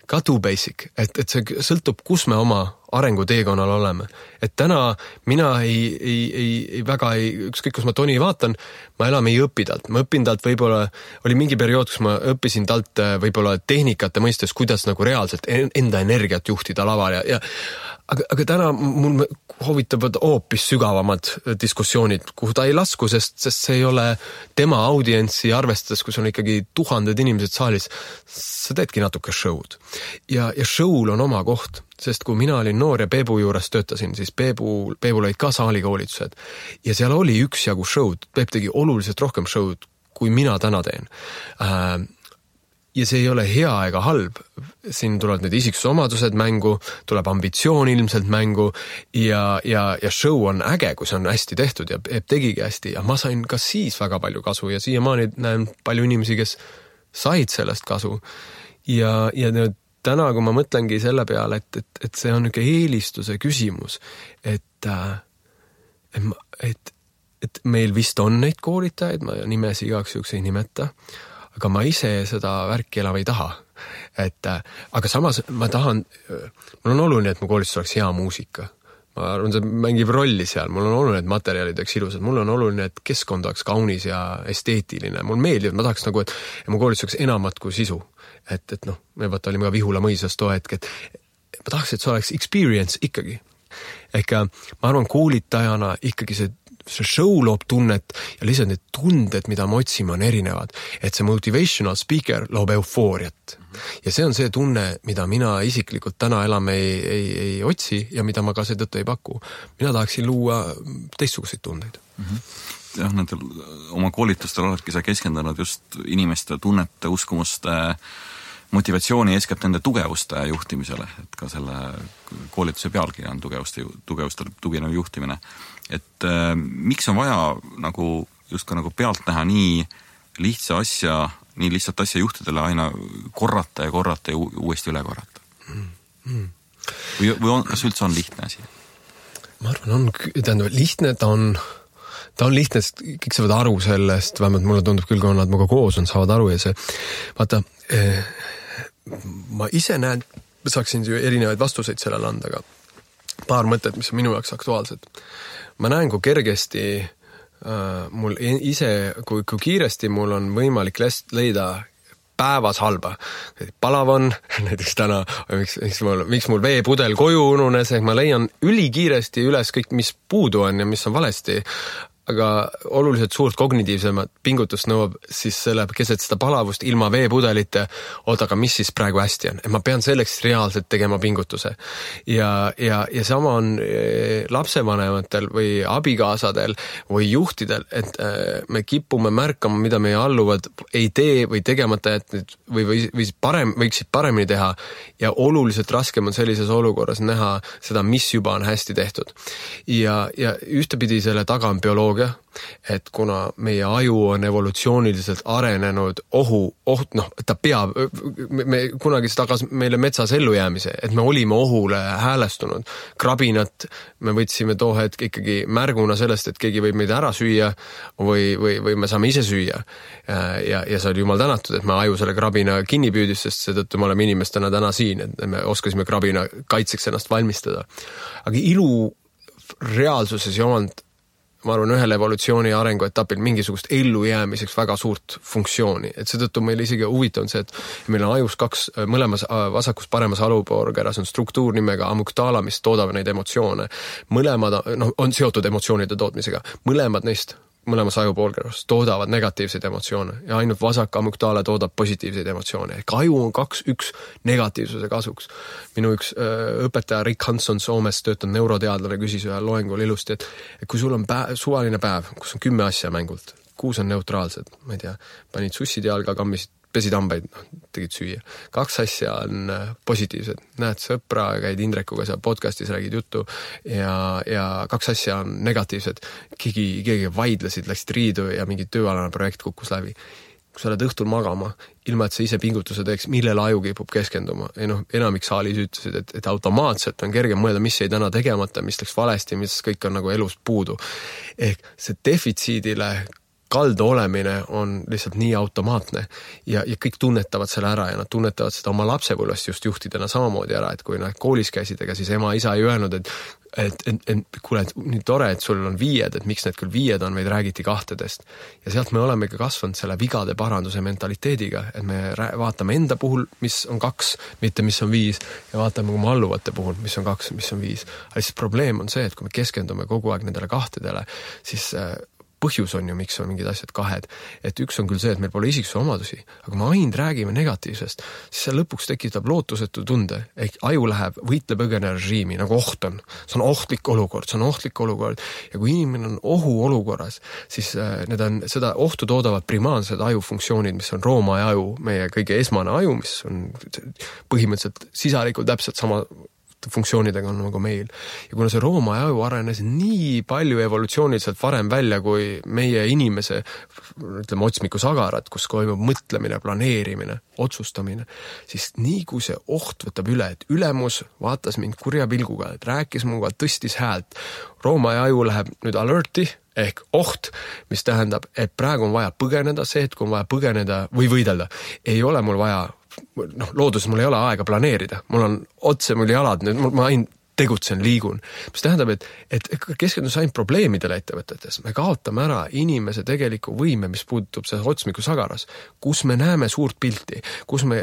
ka too basic, et see sõltub, kus me oma arenguteekonnal oleme. Et täna mina ükskõik, kus ma Toni vaatan, ma enam ei õpi talt. Ma õpin talt võib-olla, oli mingi periood, kus ma õppisin talt võib-olla tehnikate mõistes, kuidas nagu reaalselt enda energiat juhtida laval aga täna mul huvitavad hoopis sügavamad diskussioonid, kuhu ta ei lasku, sest see ei ole tema audientsi arvestades, kus on ikkagi 1000 inimesed saalis, sa teedki natuke show'd. Ja show'l on oma koht, sest kui mina olin noor ja Peebu juures töötasin, siis Peebul olid ka saalikoolitused ja seal oli üksjagu show'd, Peep tegi oluliselt rohkem show'd, kui mina täna teen. Ja see ei ole hea ega halb. Siin tulevad need isiksusomadused mängu, tuleb ambitsioon ilmselt mängu ja show on äge, kui see on hästi tehtud ja tegigi hästi. Ja ma sain ka siis väga palju kasu ja siiamaani näen palju inimesi, kes said sellest kasu. Ja täna, kui ma mõtlengi selle peale, et see on niisugune eelistuse küsimus, et meil vist on neid koolitajaid, ma nimesi igaks juhuks ei nimeta, aga ma ise seda värki enam ei taha. Aga samas mul on oluline, et mu koolitus oleks hea muusika. Ma arvan, see mängib rolli seal. Mul on oluline, et materjalid oleks ilusad. Mul on oluline, et keskkond oleks kaunis ja esteetiline. Mul meeldib, ma tahaks nagu, et mu koolitus oleks enamat kui sisu. Me olime ka Vihula mõisas too hetk, et ma tahaks, et see oleks experience ikkagi. Ehk ma arvan, koolitajana ikkagi see show loob tunnet ja lihtsalt need tunded, mida me otsime, on erinevad. Et see motivational speaker loob eufooriat. Ja see on see tunne, mida mina isiklikult täna enam ei otsi ja mida ma ka seetõttu ei paku. Mina tahaksin luua teistsuguseid tundeid. Jah, nendel oma koolitustel oledki sa keskendunud just inimeste tunnete, uskumuste, motivatsiooni eeskätt nende tugevuste juhtimisele, et ka selle koolituse pealkiri on tugevuste tuginev juhtimine. Et miks on vaja just ka pealt näha nii lihtsat asja juhtidele aina korrata ja uuesti üle korrata? Või kas üldse on lihtne asi? Ma arvan, lihtne, ta on lihtne, sest kõik saavad aru sellest, vähemalt mulle tundub küll, kui nad muga koos on, saavad aru ja see, vaata, ma ise näen, saaksin ju erinevaid vastuseid sellele anda, aga paar mõtet, mis on minu jaoks aktuaalsed. Ma näen, kui kergesti mul ise, kui kiiresti mul on võimalik leida päevas halba. Palav on, näiteks täna, miks mul veepudel koju ununes, ehk ma leian ülikiiresti üles kõik, mis puudu on ja mis on valesti, aga oluliselt suurt kognitiivsemat pingutust nõuab siis selle keset seda palavust ilma veepudelite, aga mis siis praegu hästi on. Et ma pean selleks reaalselt tegema pingutuse. Ja sama on lapsevanematel või abikaasadel või juhtidel, et me kipume märkama, mida meie alluvad ei tee või tegemata jätnud võiksid paremini teha ja oluliselt raskem on sellises olukorras näha seda, mis juba on hästi tehtud. Ja ühtepidi selle taga on bioloogia bioloogia, et kuna meie aju on evolutsiooniliselt arenenud ta peab, me kunagi tagas meile metsas ellujäämise, et me olime ohule häälestunud. Krabinat me võtsime too hetk ikkagi märguna sellest, et keegi võib meid ära süüa või me saame ise süüa. Ja see oli jumal tänatud, et me aju selle krabina kinni püüdis, sest seetõttu me oleme inimestena täna siin, et me oskasime krabina kaitseks ennast valmistada. Aga ilu reaalsuses ei olnud, ma arvan, ühel evolutsiooni arenguetapil mingisugust ellujäämiseks väga suurt funktsiooni. Et seetõttu meil isegi huvitav on see, et meil on ajus kaks, mõlemas vasakus paremas alupoorkeras on struktuur nimega amygdala, mis toodab neid emotsioone. Mõlemad on seotud emotsioonide tootmisega. Mõlemas ajupoolkeras toodavad negatiivseid emotsioone ja ainult vasak amygdala toodab positiivseid emotsioone. Ehk aju on 2-1 negatiivsuse kasuks. Minu üks õpetaja Rick Hanson Soomest töötanud neuroteadlane küsis ühel loengul ilusti, et kui sul on suvaline päev, kus on 10 asja mängult, 6 on neutraalsed, ma ei tea, panid sussid jalga, kammisid, pesid hambaid, tegid süüa. 2 asja on positiivsed. Näed sõpra, käid Indrekuga seal podcastis, räägid juttu ja 2 asja on negatiivsed. Keegi vaidlesid, läksid riidu ja mingi tööalane projekt kukkus läbi. Kui sa oled õhtul magama, ilma et sa ise pingutuse teeks, millele aju kipub keskenduma. Enamik saalis ütlesid, et automaatselt on kerge mõelda, mis jäi täna tegemata, mis läks valesti, mis kõik on nagu elus puudu. Ehk see defitsiidile kaldu olemine on lihtsalt nii automaatne ja kõik tunnetavad selle ära ja nad tunnetavad seda oma lapsepõlvest just juhtidena samamoodi ära, et kui nad koolis käisid, ega siis ema isa ei öelnud, et kuule, nii tore, et sul on 5, et miks need küll 5 on, vaid räägiti 2. Ja sealt me oleme ka kasvanud selle vigade paranduse mentaliteediga, et me vaatame enda puhul, mis on 2, mitte mis on 5 ja vaatame oma alluvate puhul, mis on 2, mis on 5. Aga siis probleem on see, et kui me keskendume kogu aeg nendele 2, siis põhjus on ju, miks on mingid asjad 2. Et üks on küll see, et meil pole isiksuse omadusi, aga me ainult räägime negatiivsest, siis see lõpuks tekitab lootusetu tunde. Ehk aju läheb võitle-põgene režiimi, nagu oht on. See on ohtlik olukord. Ja kui inimene on ohuolukorras, siis seda ohtu toodavad primaarsed ajufunktsioonid, mis on rooma ja aju, meie kõige esmane aju, mis on põhimõtteliselt sisalikult täpselt sama funktsioonidega on nagu meil. Ja kuna see rooma aju arenes nii palju evolutsiooniliselt varem välja kui meie inimese, ütleme, otsmiku sagarat, kus toimub mõtlemine, planeerimine, otsustamine, siis nii kui see oht võtab üle, et ülemus vaatas mind kurja pilguga, et rääkis muga, tõstis häält. Rooma aju läheb nüüd alerti ehk oht, mis tähendab, et praegu on vaja põgeneda, see, et kui on vaja põgeneda või võidelda, ei ole mul vaja looduses mul ei ole aega planeerida. Mul on otse mul jalad, ma ainult tegutsen, liigun. Mis tähendab, et keskendus ainult probleemidele ettevõtetes. Me kaotame ära inimese tegeliku võime, mis puutub see otsmiku sagaras, kus me näeme suurt pilti, kus me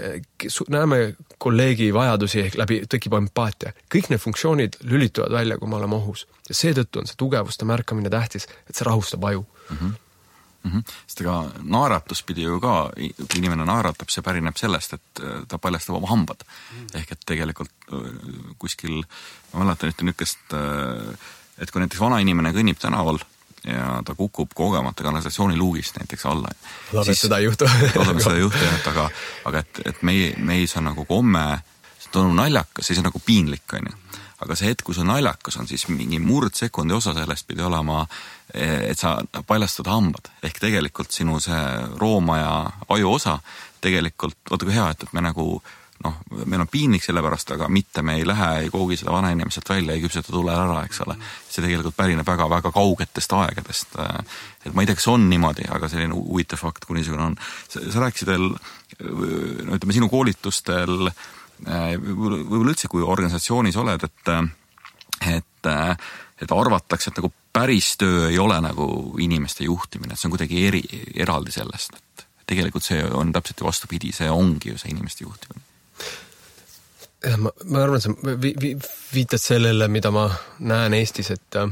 näeme kolleegi vajadusi ehk läbi tekib empaatia. Kõik need funktsioonid lülituvad välja, kui me oleme ohus. Ja seetõttu on see tugevuste märkamine tähtis, et see rahustab aju. Sest ega naeratus pidi ju ka, kui inimene naeratab, see pärineb sellest, et ta paljastab oma hambad. Ehk et tegelikult kuskil, ma mäletan niisugust, et kui näiteks vana inimene kõnnib tänaval ja ta kukub kogemata kanalisatsiooniluugist näiteks alla. Loodame seda ei juhtu. Aga et meis on nagu komme, see on naljakas, siis on nagu piinlik, on ju. Aga see hetk, kui see naljakas on, siis mingi murdsekundi osa sellest pidi olema, et sa paljastad hambad. Ehk tegelikult sinu see rooma ja aju osa tegelikult, vaata kui hea, et me nagu, meil on piinlik selle pärast, aga mitte me ei lähe, ei koogi seda vana inimeselt välja, ei küpseta tule ära, eks ole. See tegelikult pärineb väga kaugetest aegadest. Et ma ei tea, kas on niimoodi, aga selline huvitav fakt, kui niisugune on. Sa rääkisid veel, ütleme, sinu koolitustel võib-olla üldse, kui organisatsioonis oled, et arvatakse, et nagu päris töö ei ole nagu inimeste juhtimine, et see on kuidagi eraldi sellest, et tegelikult see on täpselt vastupidi, see ongi ju see inimeste juhtimine. Ma arvan, et sa viitad sellele, mida ma näen Eestis, et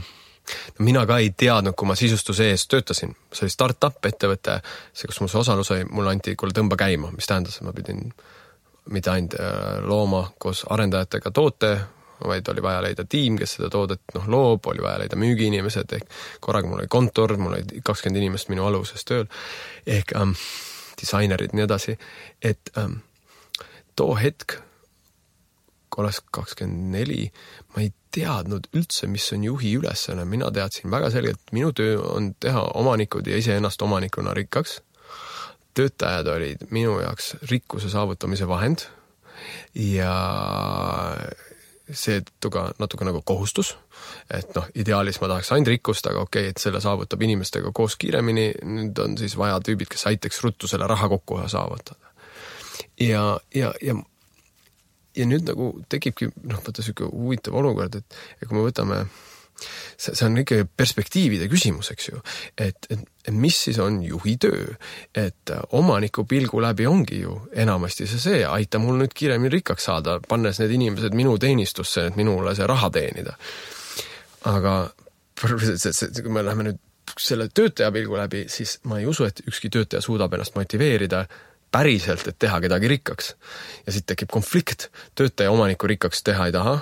mina ka ei teadnud, kui ma sisustuse ees töötasin. See oli start-up ettevõte, see, kus mul see osalus oli, mulle anti kuule tõmba käima, mis tähendas, et ma pidin mitte ainult looma koos arendajatega toote, vaid oli vaja leida tiim, kes seda toodet loob, oli vaja leida müügiinimesed, ehk korraga mul oli kontor, mul oli 20 inimest minu aluses tööl, ehk disainerid nii edasi, et too hetk olles 24, ma ei teadnud üldse, mis on juhi ülesanne. Mina teadsin väga selgelt, et minu töö on teha omanikud ja iseennast omanikuna rikkaks. Töötajad olid minu jaoks rikkuse saavutamise vahend ja see ka natuke nagu kohustus, et ideaalis ma tahaks ainult rikkust, aga okei, et selle saavutab inimestega koos kiiremini, nüüd on siis vaja tüübid, kes aitaks ruttu selle raha kokku saavutada. Ja nüüd nagu tekibki, vaata selline huvitav olukord, et kui me võtame, see on ikka perspektiivide küsimus, eks ju, et mis siis on juhi töö, et omaniku pilgu läbi ongi ju enamasti see, aita mul nüüd kiiremini rikkaks saada, pannes need inimesed minu teenistusse, et minule see raha teenida. Aga kui me läheme nüüd selle töötaja pilgu läbi, siis ma ei usu, et ükski töötaja suudab ennast motiveerida päriselt, et teha kedagi rikkaks. Ja siit tekib konflikt. Töötaja omaniku rikkaks teha ei taha.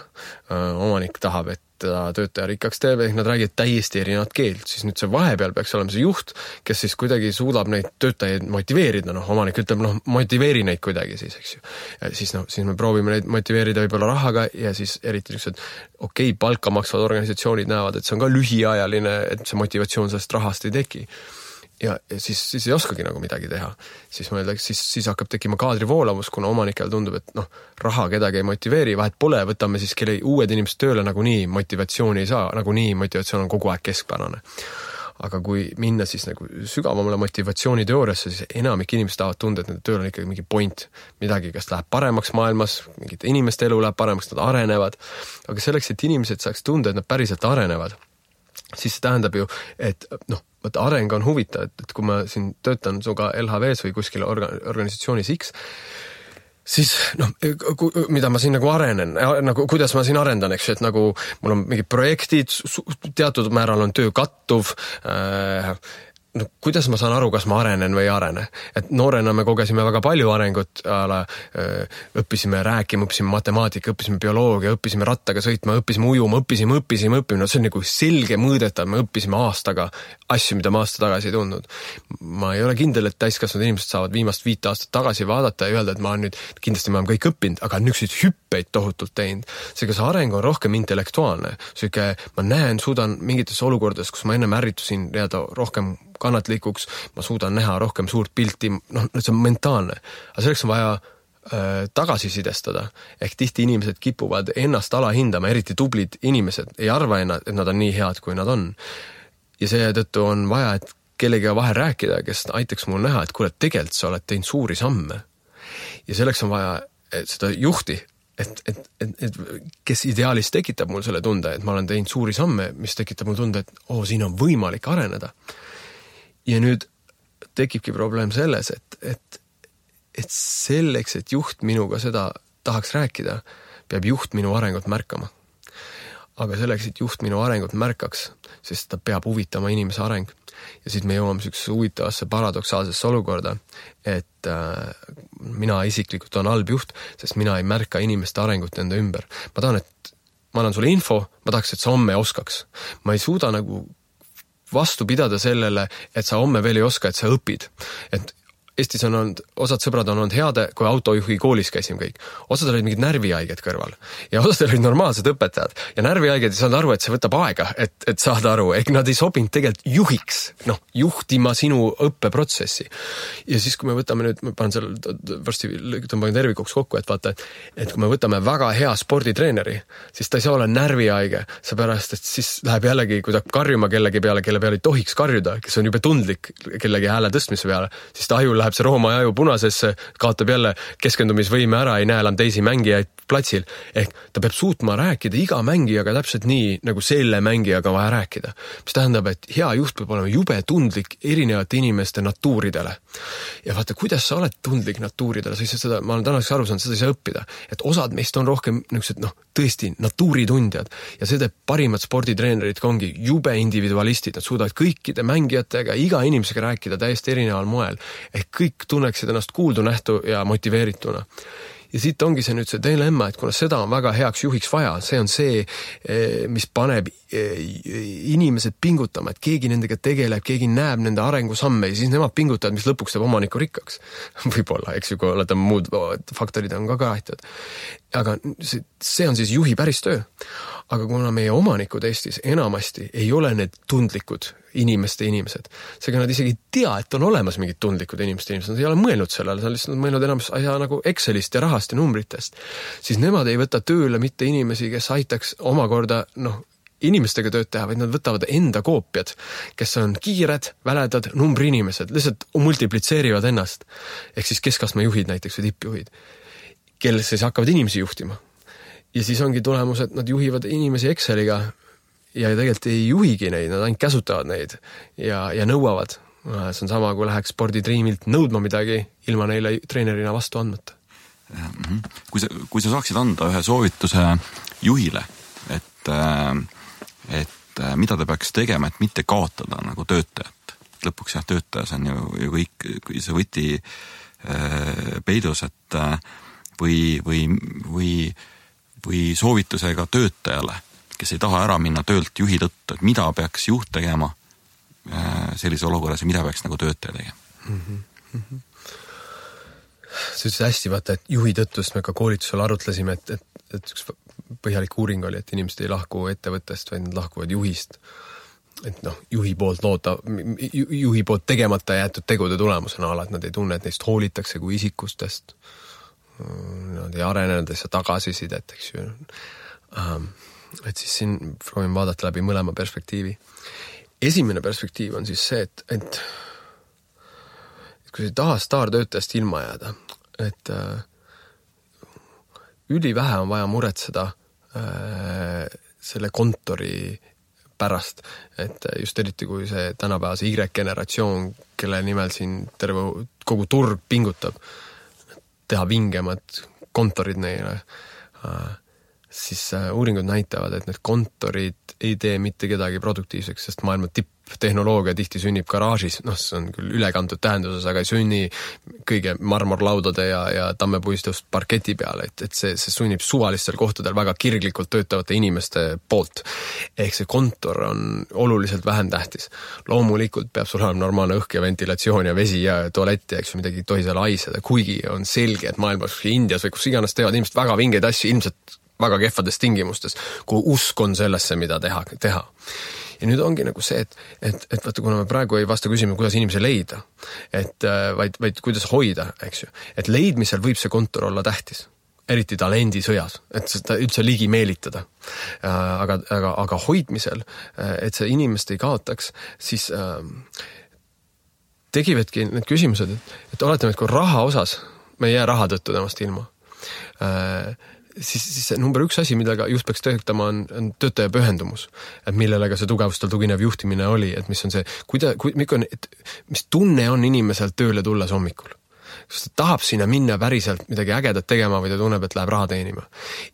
Omanik tahab, et töötaja rikkaks teeb, ehk nad räägivad täiesti erinevat keelt. Siis nüüd see vahepeal peaks olema see juht, kes siis kuidagi suudab neid töötajaid motiveerida. Omanik ütleb, motiveeri neid kuidagi siis, eks ju. Ja siis me proovime neid motiveerida võib-olla rahaga ja siis eriti niisugused palka maksvad organisatsioonid näevad, et see on ka lühiajaline, et see motivatsioon sellest rahast ei teki. Ja siis ei oskagi nagu midagi teha. Siis hakkab tekkima kaadrivoolavus, kuna omanikel tundub, et raha kedagi ei motiveeri, vahet pole, võtame siis kelle uued inimesed tööle, nagu nii motivatsiooni ei saa, nagu nii motivatsioon on kogu aeg keskpärane. Aga kui minna siis nagu sügavamale motivatsiooniteooriasse, siis enamik inimesed tahavad tunda, et nende tööl on ikkagi mingi point, midagi, kas läheb paremaks maailmas, mingite inimeste elu läheb paremaks, nad arenevad, aga selleks, et inimesed saaks tunda, et nad päriselt arenevad, siis see tähendab ju, et areng on huvitav, et kui ma siin töötan suga LHVs või kuskil organisatsioonis X, siis mida ma siin nagu arenen, nagu kuidas ma siin arendan, eks, et nagu mul on mingid projektid, teatud määral on töö kattuv, kuidas ma saan aru, kas ma arenen või ei arene? Et noorena me kogesime väga palju arengut, õppisime rääkima, õppisime matemaatika, õppisime bioloogia, õppisime rattaga sõitma, õppisime ujuma, õppisime. See on nagu selge mõõdetav, me õppisime aastaga asju, mida ma aasta tagasi ei tundnud. Ma ei ole kindel, et täiskasvanud inimesed saavad viimast 5 aastat tagasi vaadata ja öelda, et ma olen nüüd, kindlasti ma olen kõik õppinud, aga niisuguseid hüppeid tohutult teinud. Seega see areng on rohkem intellektuaalne. Ma näen, suudan mingites olukordades, kus ma ennem ärritusin rohkem kannatlikuks, ma suudan näha rohkem suurt pilti, see on mentaalne. Aga selleks on vaja tagasisidestada. Ehk tihti inimesed kipuvad ennast alahindama, eriti tublid inimesed ei arva, et nad on nii head, kui nad on. Ja seetõttu on vaja, et kellega vahel rääkida, kes aitaks mul näha, et kuule, tegelikult sa oled teinud suuri samme. Ja selleks on vaja seda juhti, et kes ideaalis tekitab mul selle tunde, et ma olen teinud suuri samme, mis tekitab mul tunde, et siin on võimalik areneda. Ja nüüd tekibki probleem selles, et selleks, et juht minuga seda tahaks rääkida, peab juht minu arengut märkama. Aga selleks, et juht minu arengut märkaks, siis ta peab huvitama inimese areng. Ja siis me jõuame sellisesse huvitavasse paradoksaalsesse olukorda, et mina isiklikult on halb juht, sest mina ei märka inimeste arengut enda ümber. Ma tahan, et ma annan sulle info, ma tahaks, et sa homme oskaks. Ma ei suuda nagu vastu pidada sellele, et sa homme veel ei oska, et sa õpid. Et Eestis on olnud, osad sõbrad on olnud heade, kui autojuhi koolis käisime kõik. Osad olid mingid närvihaiged kõrval. Ja osad olid normaalsed õpetajad. Ja närvihaiged ei saanud aru, et see võtab aega, et saada aru. Ehk nad ei sobinud tegelikult juhiks, juhtima sinu õppeprotsessi. Ja siis, kui me võtame nüüd, ma panen seal, varsti tõmban tervikuks kokku, et vaata, et kui me võtame väga hea sporditreeneri, siis ta ei saa olla närvihaige, seepärast, et siis läheb jällegi, kui ta karjuma kellegi peale, kelle peale ei tohiks karjuda, kes on jube tundlik kellegi hääle tõstmise peale, siis ta aju läheb see rooma aju punasesse, kaotab jälle keskendumisvõime ära, ei näe enam teisi mängijaid platsil. Ehk ta peab suutma rääkida iga mängijaga täpselt nii, nagu selle mängijaga vaja rääkida. Mis tähendab, et hea juht peab olema jube tundlik erinevate inimeste natuuridele. Ja vaata, kuidas sa oled tundlik natuuridele, sa ei saa seda, ma olen tänaseks aru saanud, seda ei saa õppida. Et osad meist on rohkem tõesti natuuritundjad ja see teeb parimad sporditreenerid ongi jube individualistid, nad suudavad kõikide mängijatega, iga inimesega rääkida täiesti erineval moel. Ehk kõik tunneksid ennast kuuldu nähtu ja motiveerituna. Ja siit ongi see nüüd see dilemma, et kuna seda on väga heaks juhiks vaja, see on see, mis paneb inimesed pingutama, et keegi nendega tegeleb, keegi näeb nende arengusamme ja siis nemad pingutavad, mis lõpuks teeb omaniku rikkaks. Võib-olla, eks ju, kui olete muud faktorid on ka aitavad. Aga see on siis juhi päris töö. Aga kuna meie omanikud Eestis enamasti ei ole need tundlikud inimesed, seega nad isegi ei tea, et on olemas mingid tundlikud inimesed, nad ei ole mõelnud sellele, nad on lihtsalt mõelnud enamus asja nagu Excelist ja rahast ja numbritest, siis nemad ei võta tööle mitte inimesi, kes aitaks omakorda, inimestega tööd teha, vaid nad võtavad enda koopiad, kes on kiired, väledad, numbriinimesed, lihtsalt multiplitseerivad ennast. Ehk siis keskastme juhid näiteks või tippjuhid, kel siis hakkavad inimesi juhtima. Ja siis ongi tulemus, et nad juhivad inimesi Exceliga ja tegelikult ei juhigi neid, nad ainult käsutavad neid ja nõuavad. See on sama, kui läheks spordidriimilt nõudma midagi ilma neile treenerina vastu andmata. Kui sa saaksid anda ühe soovituse juhile, et mida ta peaks tegema, et mitte kaotada nagu töötajat. Lõpuks töötajas on ju kõik see võti peidus, et või soovitusega töötajale, kes ei taha ära minna töölt juhi tõttu, et mida peaks juht tegema sellise olukorras ja mida peaks nagu töötaja tegema? See ütles hästi, vaata, et juhi tõttust me ka koolitusel arutlesime, et üks põhjalik uuring oli, et inimesed ei lahku ettevõttest, vaid nad lahkuvad juhist. Et juhi poolt tegemata jäetud tegude tulemusena ala, et nad ei tunne, et neist hoolitakse kui isikustest. Nad ei arene, nad ei saa tagasisidet, eks ju. Et siis siin proovin vaadata läbi mõlema perspektiivi. Esimene perspektiiv on siis see, et kui sa ei taha staartöötajast ilma jääda, et ülivähe on vaja muretseda selle kontori pärast, et just eriti kui see tänapäevase Y-generatsioon, kelle nimel siin terve kogu turg pingutab, teha vingemad kontorid neile, siis uuringud näitavad, et need kontorid ei tee mitte kedagi produktiivseks, sest maailma tipptehnoloogia tihti sünnib garaažis, see on küll ülekantud tähenduses, aga ei sünni kõige marmorlaudade ja tammepuistust parketi peale, et see sunnib suvalistel kohtadel väga kirglikult töötavate inimeste poolt. Ehk see kontor on oluliselt vähem tähtis. Loomulikult peab sul olema normaalne õhk ja ventilatsioon ja vesi ja tualett ja eks midagi ei tohi seal haiseda, kuigi on selge, et maailmas Indias või kus iganes teevad inimesed väga vingeid asju, ilmselt väga kehvades tingimustes, kui usk on sellesse, mida teha. Ja nüüd ongi nagu see, et vaata, kuna me praegu ei vasta küsima, kuidas inimese leida, vaid kuidas hoida, eks ju. Et leidmisel võib see kontor olla tähtis, eriti talendisõjas, et seda üldse ligi meelitada. Aga hoidmisel, et see inimest ei kaotaks, siis tegivadki need küsimused, et oletame, et kui raha osas, me ei jää raha tõttu temast ilma, siis number üks asi, millega just peaks töötama, on töötaja pühendumus, et millele ka see tugevustel tuginev juhtimine oli, et mis on see, mis tunne on inimesel tööle tulles hommikul. Kas ta tahab sinna minna päriselt midagi ägedat tegema või ta tunneb, et läheb raha teenima.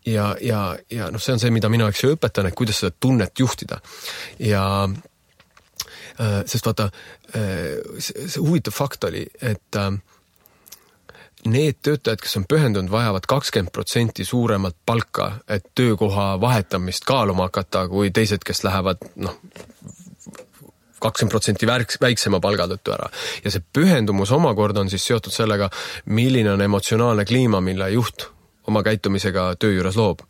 Ja see on see, mida mina õpetan, et kuidas seda tunnet juhtida. Ja sest vaata, see huvitav fakt oli, et need töötajad, kes on pühendunud, vajavad 20% suuremat palka, et töökoha vahetamist kaaluma hakata, kui teised, kes lähevad 20% väiksema palga tõttu ära. Ja see pühendumus omakorda on siis seotud sellega, milline on emotsionaalne kliima, mille juht oma käitumisega töö juures loob.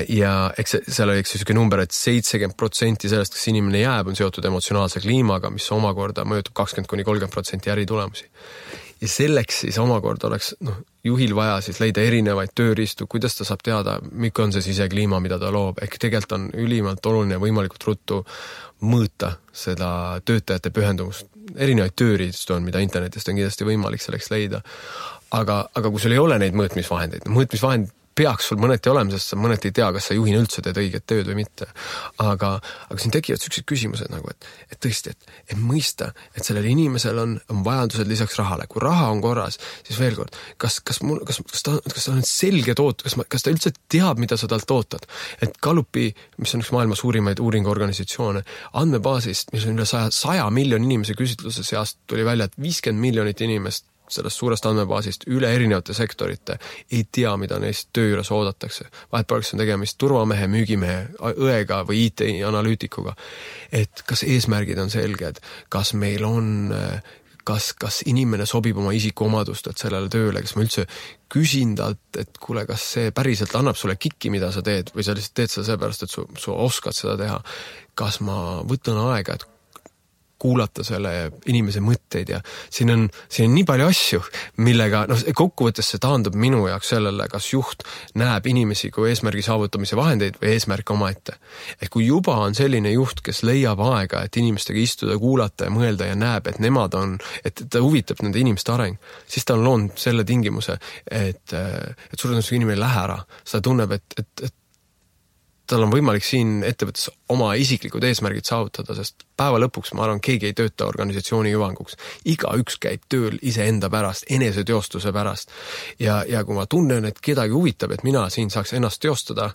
Ja eks seal oli selline number, et 70% sellest, kes inimene jääb, on seotud emotsionaalse kliimaga, mis omakorda mõjutab 20-30% äritulemusi. Ja selleks siis omakorda oleks juhil vaja siis leida erinevaid tööriistu, kuidas ta saab teada, mikk on see sisekliima, mida ta loob. Ehk tegelikult on ülimalt oluline võimalikult ruttu mõõta seda töötajate pühendumust. Erinevaid tööriistu on, mida internetist on kindlasti võimalik selleks leida. Aga kui sul ei ole neid mõõtmisvahendeid, mõõtmisvahend peaks sul mõneti olema, sest sa mõneti ei tea, kas sa juhina üldse teed õiget tööd või mitte. Aga siin tekivad sellised küsimused nagu, et tõesti, et mõista, et sellel inimesel on vajadused lisaks rahale. Kui raha on korras, siis veel kord, kas ta on selge kas ta üldse teab, mida sa talt ootad? Et Gallupi, mis on üks maailma suurimaid uuringuorganisatsioone, andmebaasist, mis on üle 100 miljoni inimese küsitluse seast, tuli välja, et 50 miljonit inimest sellest suurest andmebaasist üle erinevate sektorite, ei tea, mida neist töö juures oodatakse. Vahepeal on tegemist turvamehe, müügimehe, õega või IT-analüütikuga. Et kas eesmärgid on selged, kas meil on kas inimene sobib oma isikuomadustelt sellele tööle, kas ma üldse küsin talt, et kuule, kas see päriselt annab sulle kikki, mida sa teed, või sa lihtsalt teed seda seepärast, et su oskad seda teha. Kas ma võtan aega, et kuulata selle inimese mõtteid ja siin on nii palju asju, millega kokkuvõttes see taandub minu jaoks sellele, kas juht näeb inimesi kui eesmärgi saavutamise vahendeid või eesmärk omaette. Kui juba on selline juht, kes leiab aega, et inimestega istuda, kuulata ja mõelda ja näeb, et nemad on, et ta huvitab nende inimeste areng, siis ta on loonud selle tingimuse, et suure tõenäosusega inimene ei lähe ära. Seda tunneb, et tal on võimalik siin ettevõttes oma isiklikud eesmärgid saavutada, sest päeva lõpuks ma arvan, keegi ei tööta organisatsiooni hüvanguks. Igaüks käib tööl iseenda pärast, eneseteostuse pärast. Ja kui ma tunnen, et kedagi huvitab, et mina siin saaks ennast teostada,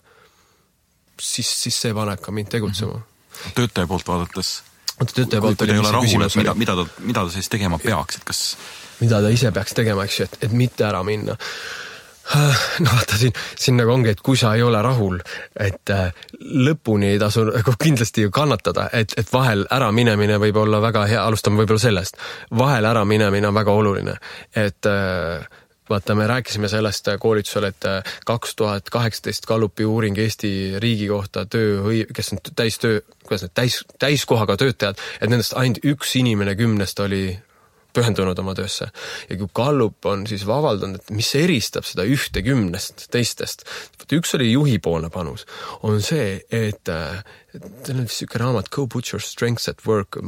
siis see paneb ka mind tegutsema. Töötaja poolt vaadates, kui ta ei ole rahul, et mida ta siis tegema peaks, et kas... Mida ta ise peaks tegema, eks ju, et mitte ära minna. Vaata siin nagu ongi, et kui sa ei ole rahul, et lõpuni ei tasu kindlasti ju kannatada, et vahel ära minemine võib olla väga hea, alustame võib-olla sellest, vahel ära minemine on väga oluline, et vaata, me rääkisime sellest koolitusel, et 2018 Gallupi uuring Eesti riigi kohta kes on täiskohaga töötajad, et nendest ainult üks inimene 10 oli pühendunud oma töösse. Ja kui Gallup on siis avaldanud, et mis eristab seda 10 teistest, üks oli juhipoolne panus, on see, et teil on vist siuke raamat Go Put Your Strengths at Work,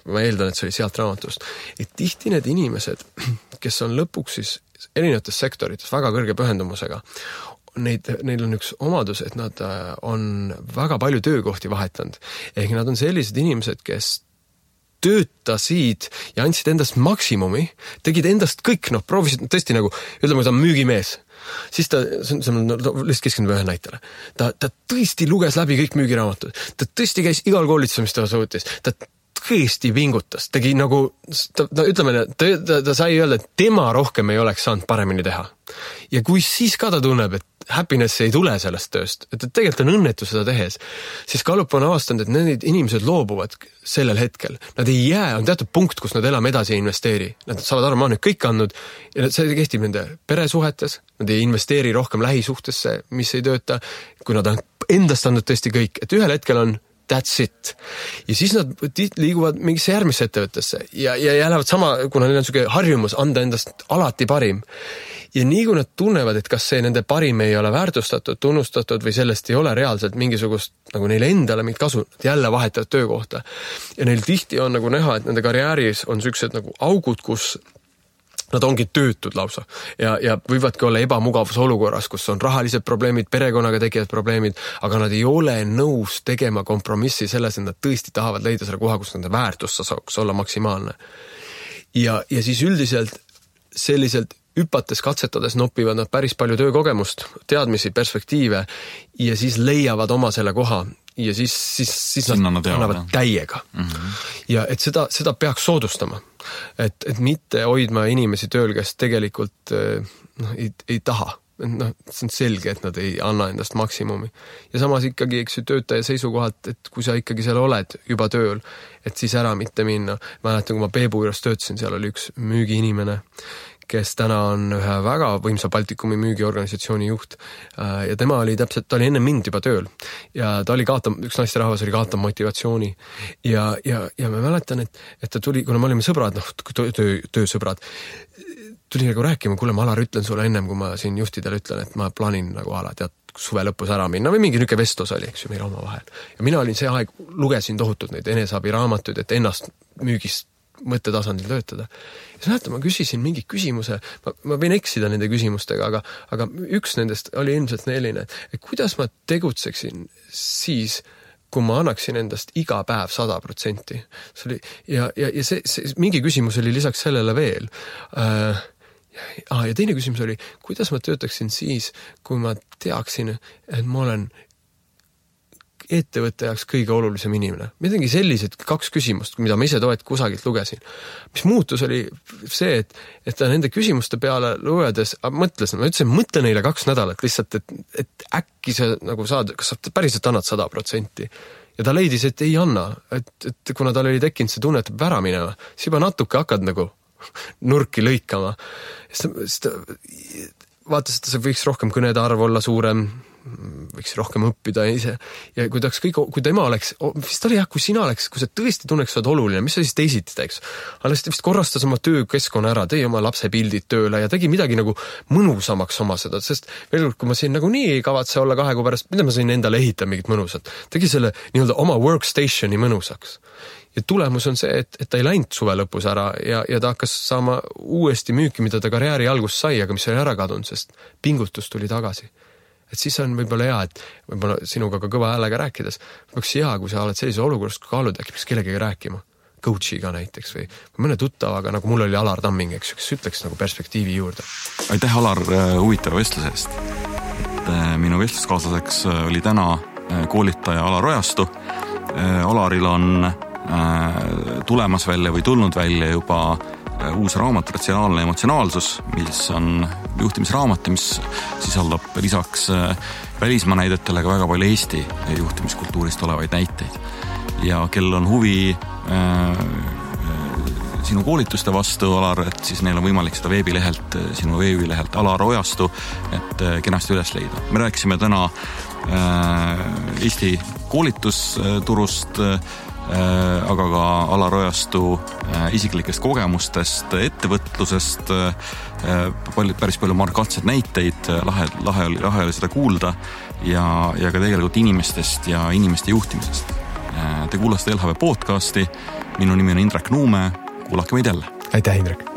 ma eeldan, et see oli sealt raamatust, et tihti need inimesed, kes on lõpuks siis erinevates sektorites väga kõrge pühendumusega, neil on üks omadus, et nad on väga palju töökohti vahetanud. Ehk nad on sellised inimesed, kes töötasid ja andsid endast maksimumi, tegid endast kõik, proovisid tõesti nagu, ütleme, ta on müügimees. Siis ta, lihtsalt keskendub ühe näitele. Ta tõesti luges läbi kõik müügiraamatud. Ta tõesti käis igal koolitusel, mis ta suutis. Ta tõesti vingutas. Tegi nagu, ütleme, ta sai öelda, et tema rohkem ei oleks saanud paremini teha. Ja kui siis ka ta tunneb, et happiness ei tule sellest tööst, et tegelikult on õnnetu seda tehes, siis Gallup on avastanud, et need inimesed loobuvad sellel hetkel. Nad ei jää, on teatud punkt, kus nad elame edasi ja investeeri. Nad saavad aru, ma olen nüüd kõik andnud ja see kehtib nende peresuhetes, nad ei investeeri rohkem lähisuhtesse, mis ei tööta, kui nad on endast andnud tõesti kõik, et ühel hetkel on that's it. Ja siis nad liiguvad mingisse järgmisse ettevõttesse ja lähevad sama, kuna neil on selline harjumus anda endast alati parim. Ja nii kui nad tunnevad, et kas see nende parim ei ole väärtustatud, tunnustatud või sellest ei ole reaalselt mingisugust, nagu neile endale mingit kasu, nad jälle vahetavad töökohta. Ja neil tihti on nagu näha, et nende karjääris on sellised nagu augud, kus nad ongi töötud lausa ja võivadki olla ebamugavus olukorras, kus on rahalised probleemid, perekonnaga tekivad probleemid, aga nad ei ole nõus tegema kompromissi selles, et nad tõesti tahavad leida selle koha, kus nende väärtus saaks olla maksimaalne. Ja siis üldiselt selliselt hüpates, katsetades nopivad nad päris palju töökogemust, teadmisi, perspektiive ja siis leiavad oma selle koha ja siis nad annavad täiega. Ja et seda peaks soodustama. Et mitte hoidma inimesi tööl, kes tegelikult ei taha. See on selge, et nad ei anna endast maksimumi. Ja samas ikkagi töötaja seisukohalt, et kui sa ikkagi seal oled juba tööl, et siis ära mitte minna. Mäletan, kui ma Peebu juures töötasin, seal oli üks müügiinimene, kes täna on ühe väga võimsa Baltikumi müügiorganisatsiooni juht ja tema oli enne mind juba tööl ja ta oli üks naisterahvas oli kaotav motivatsiooni ja ma mäletan, et ta tuli, kuna me olime sõbrad, töösõbrad, tuli nagu rääkima, kuule, ma Alar ütlen sulle ennem, kui ma siin juhtidele ütlen, et ma plaanin nagu tead, suve lõpus ära minna või mingi niisugune vestlus oli, eks ju, meil oma vahel. Ja mina olin see aeg, lugesin tohutult neid eneseabiraamatuid, et ennast müügist mõttetasandil töötada. Ja näete, ma küsisin mingi küsimuse, ma võin eksida nende küsimustega, aga üks nendest oli ilmselt selline, et kuidas ma tegutseksin siis, kui ma annaksin endast iga päev 100%. Ja see mingi küsimus oli lisaks sellele veel. Ja teine küsimus oli, kuidas ma töötaksin siis, kui ma teaksin, et ma olen ettevõtte jaoks kõige olulisem inimene. Midagi sellised 2 küsimust, mida ma ise kusagilt lugesin. Mis muutus oli see, et ta nende küsimuste peale lugedes mõtlesin, ma ütlesin, mõtle neile 2 nädalat lihtsalt, et äkki sa nagu saad, kas sa päriselt annad 100%. Ja ta leidis, et ei anna, et kuna tal oli tekkinud see tunne, et peab ära minema, siis juba natuke hakkad nagu nurki lõikama. Siis ta vaatas, et see võiks rohkem kõnede arv olla suurem, võiks rohkem õppida ise. Ja kui tema oleks, vist oli kui sina oleks, kui sa tõesti tunneks, sa oled oluline, mis sa siis teisiti teeks? Alles ta vist korrastas oma töökeskkonna ära, tõi oma lapse pildid tööle ja tegi midagi nagu mõnusamaks oma seda, sest veel kui ma siin nagu nii ei kavatse olla 2 kuu pärast, mida ma sain endale ehitada mingit mõnusat, tegi selle nii-öelda oma workstationi mõnusaks. Ja tulemus on see, et ta ei läinud suve lõpus ära ja ta hakkas saama uuesti müüki, mida ta karjääri algus sai, aga mis oli ära kadunud, sest pingutus tuli tagasi. Et siis on võib-olla hea, et võib-olla sinuga ka kõva häälega rääkides, peaks hea, kui sa oled sellise olukorras, kui kaalud äkki peaks kellegagi rääkima, coachiga näiteks või mõne tuttavaga, nagu mul oli Alar Tamming, eks ütleks nagu perspektiivi juurde. Aitäh, Alar, huvitava vestluse eest. Minu vestluskaaslaseks oli täna koolitaja Alar Ojastu. Alaril on tulemas välja või tulnud välja juba uus raamat Ratsionaalne emotsionaalsus, mis on juhtimisraamat, mis sisaldab lisaks välismaa näidetele ka väga palju Eesti juhtimiskultuurist olevaid näiteid. Ja kel on huvi sinu koolituste vastu, Alar, et siis neil on võimalik seda sinu veebilehelt Alar Ojastu, et kenasti üles leida. Me rääkisime täna Eesti koolitusturust, aga ka Alar Ojastu isiklikest kogemustest, ettevõtlusest, päris palju markantseid näiteid, lahe oli seda kuulda ja ka tegelikult inimestest ja inimeste juhtimisest. Te kuulasite LHV podcasti, minu nimi on Indrek Nuume, kuulake meid jälle. Aitäh, Indrek!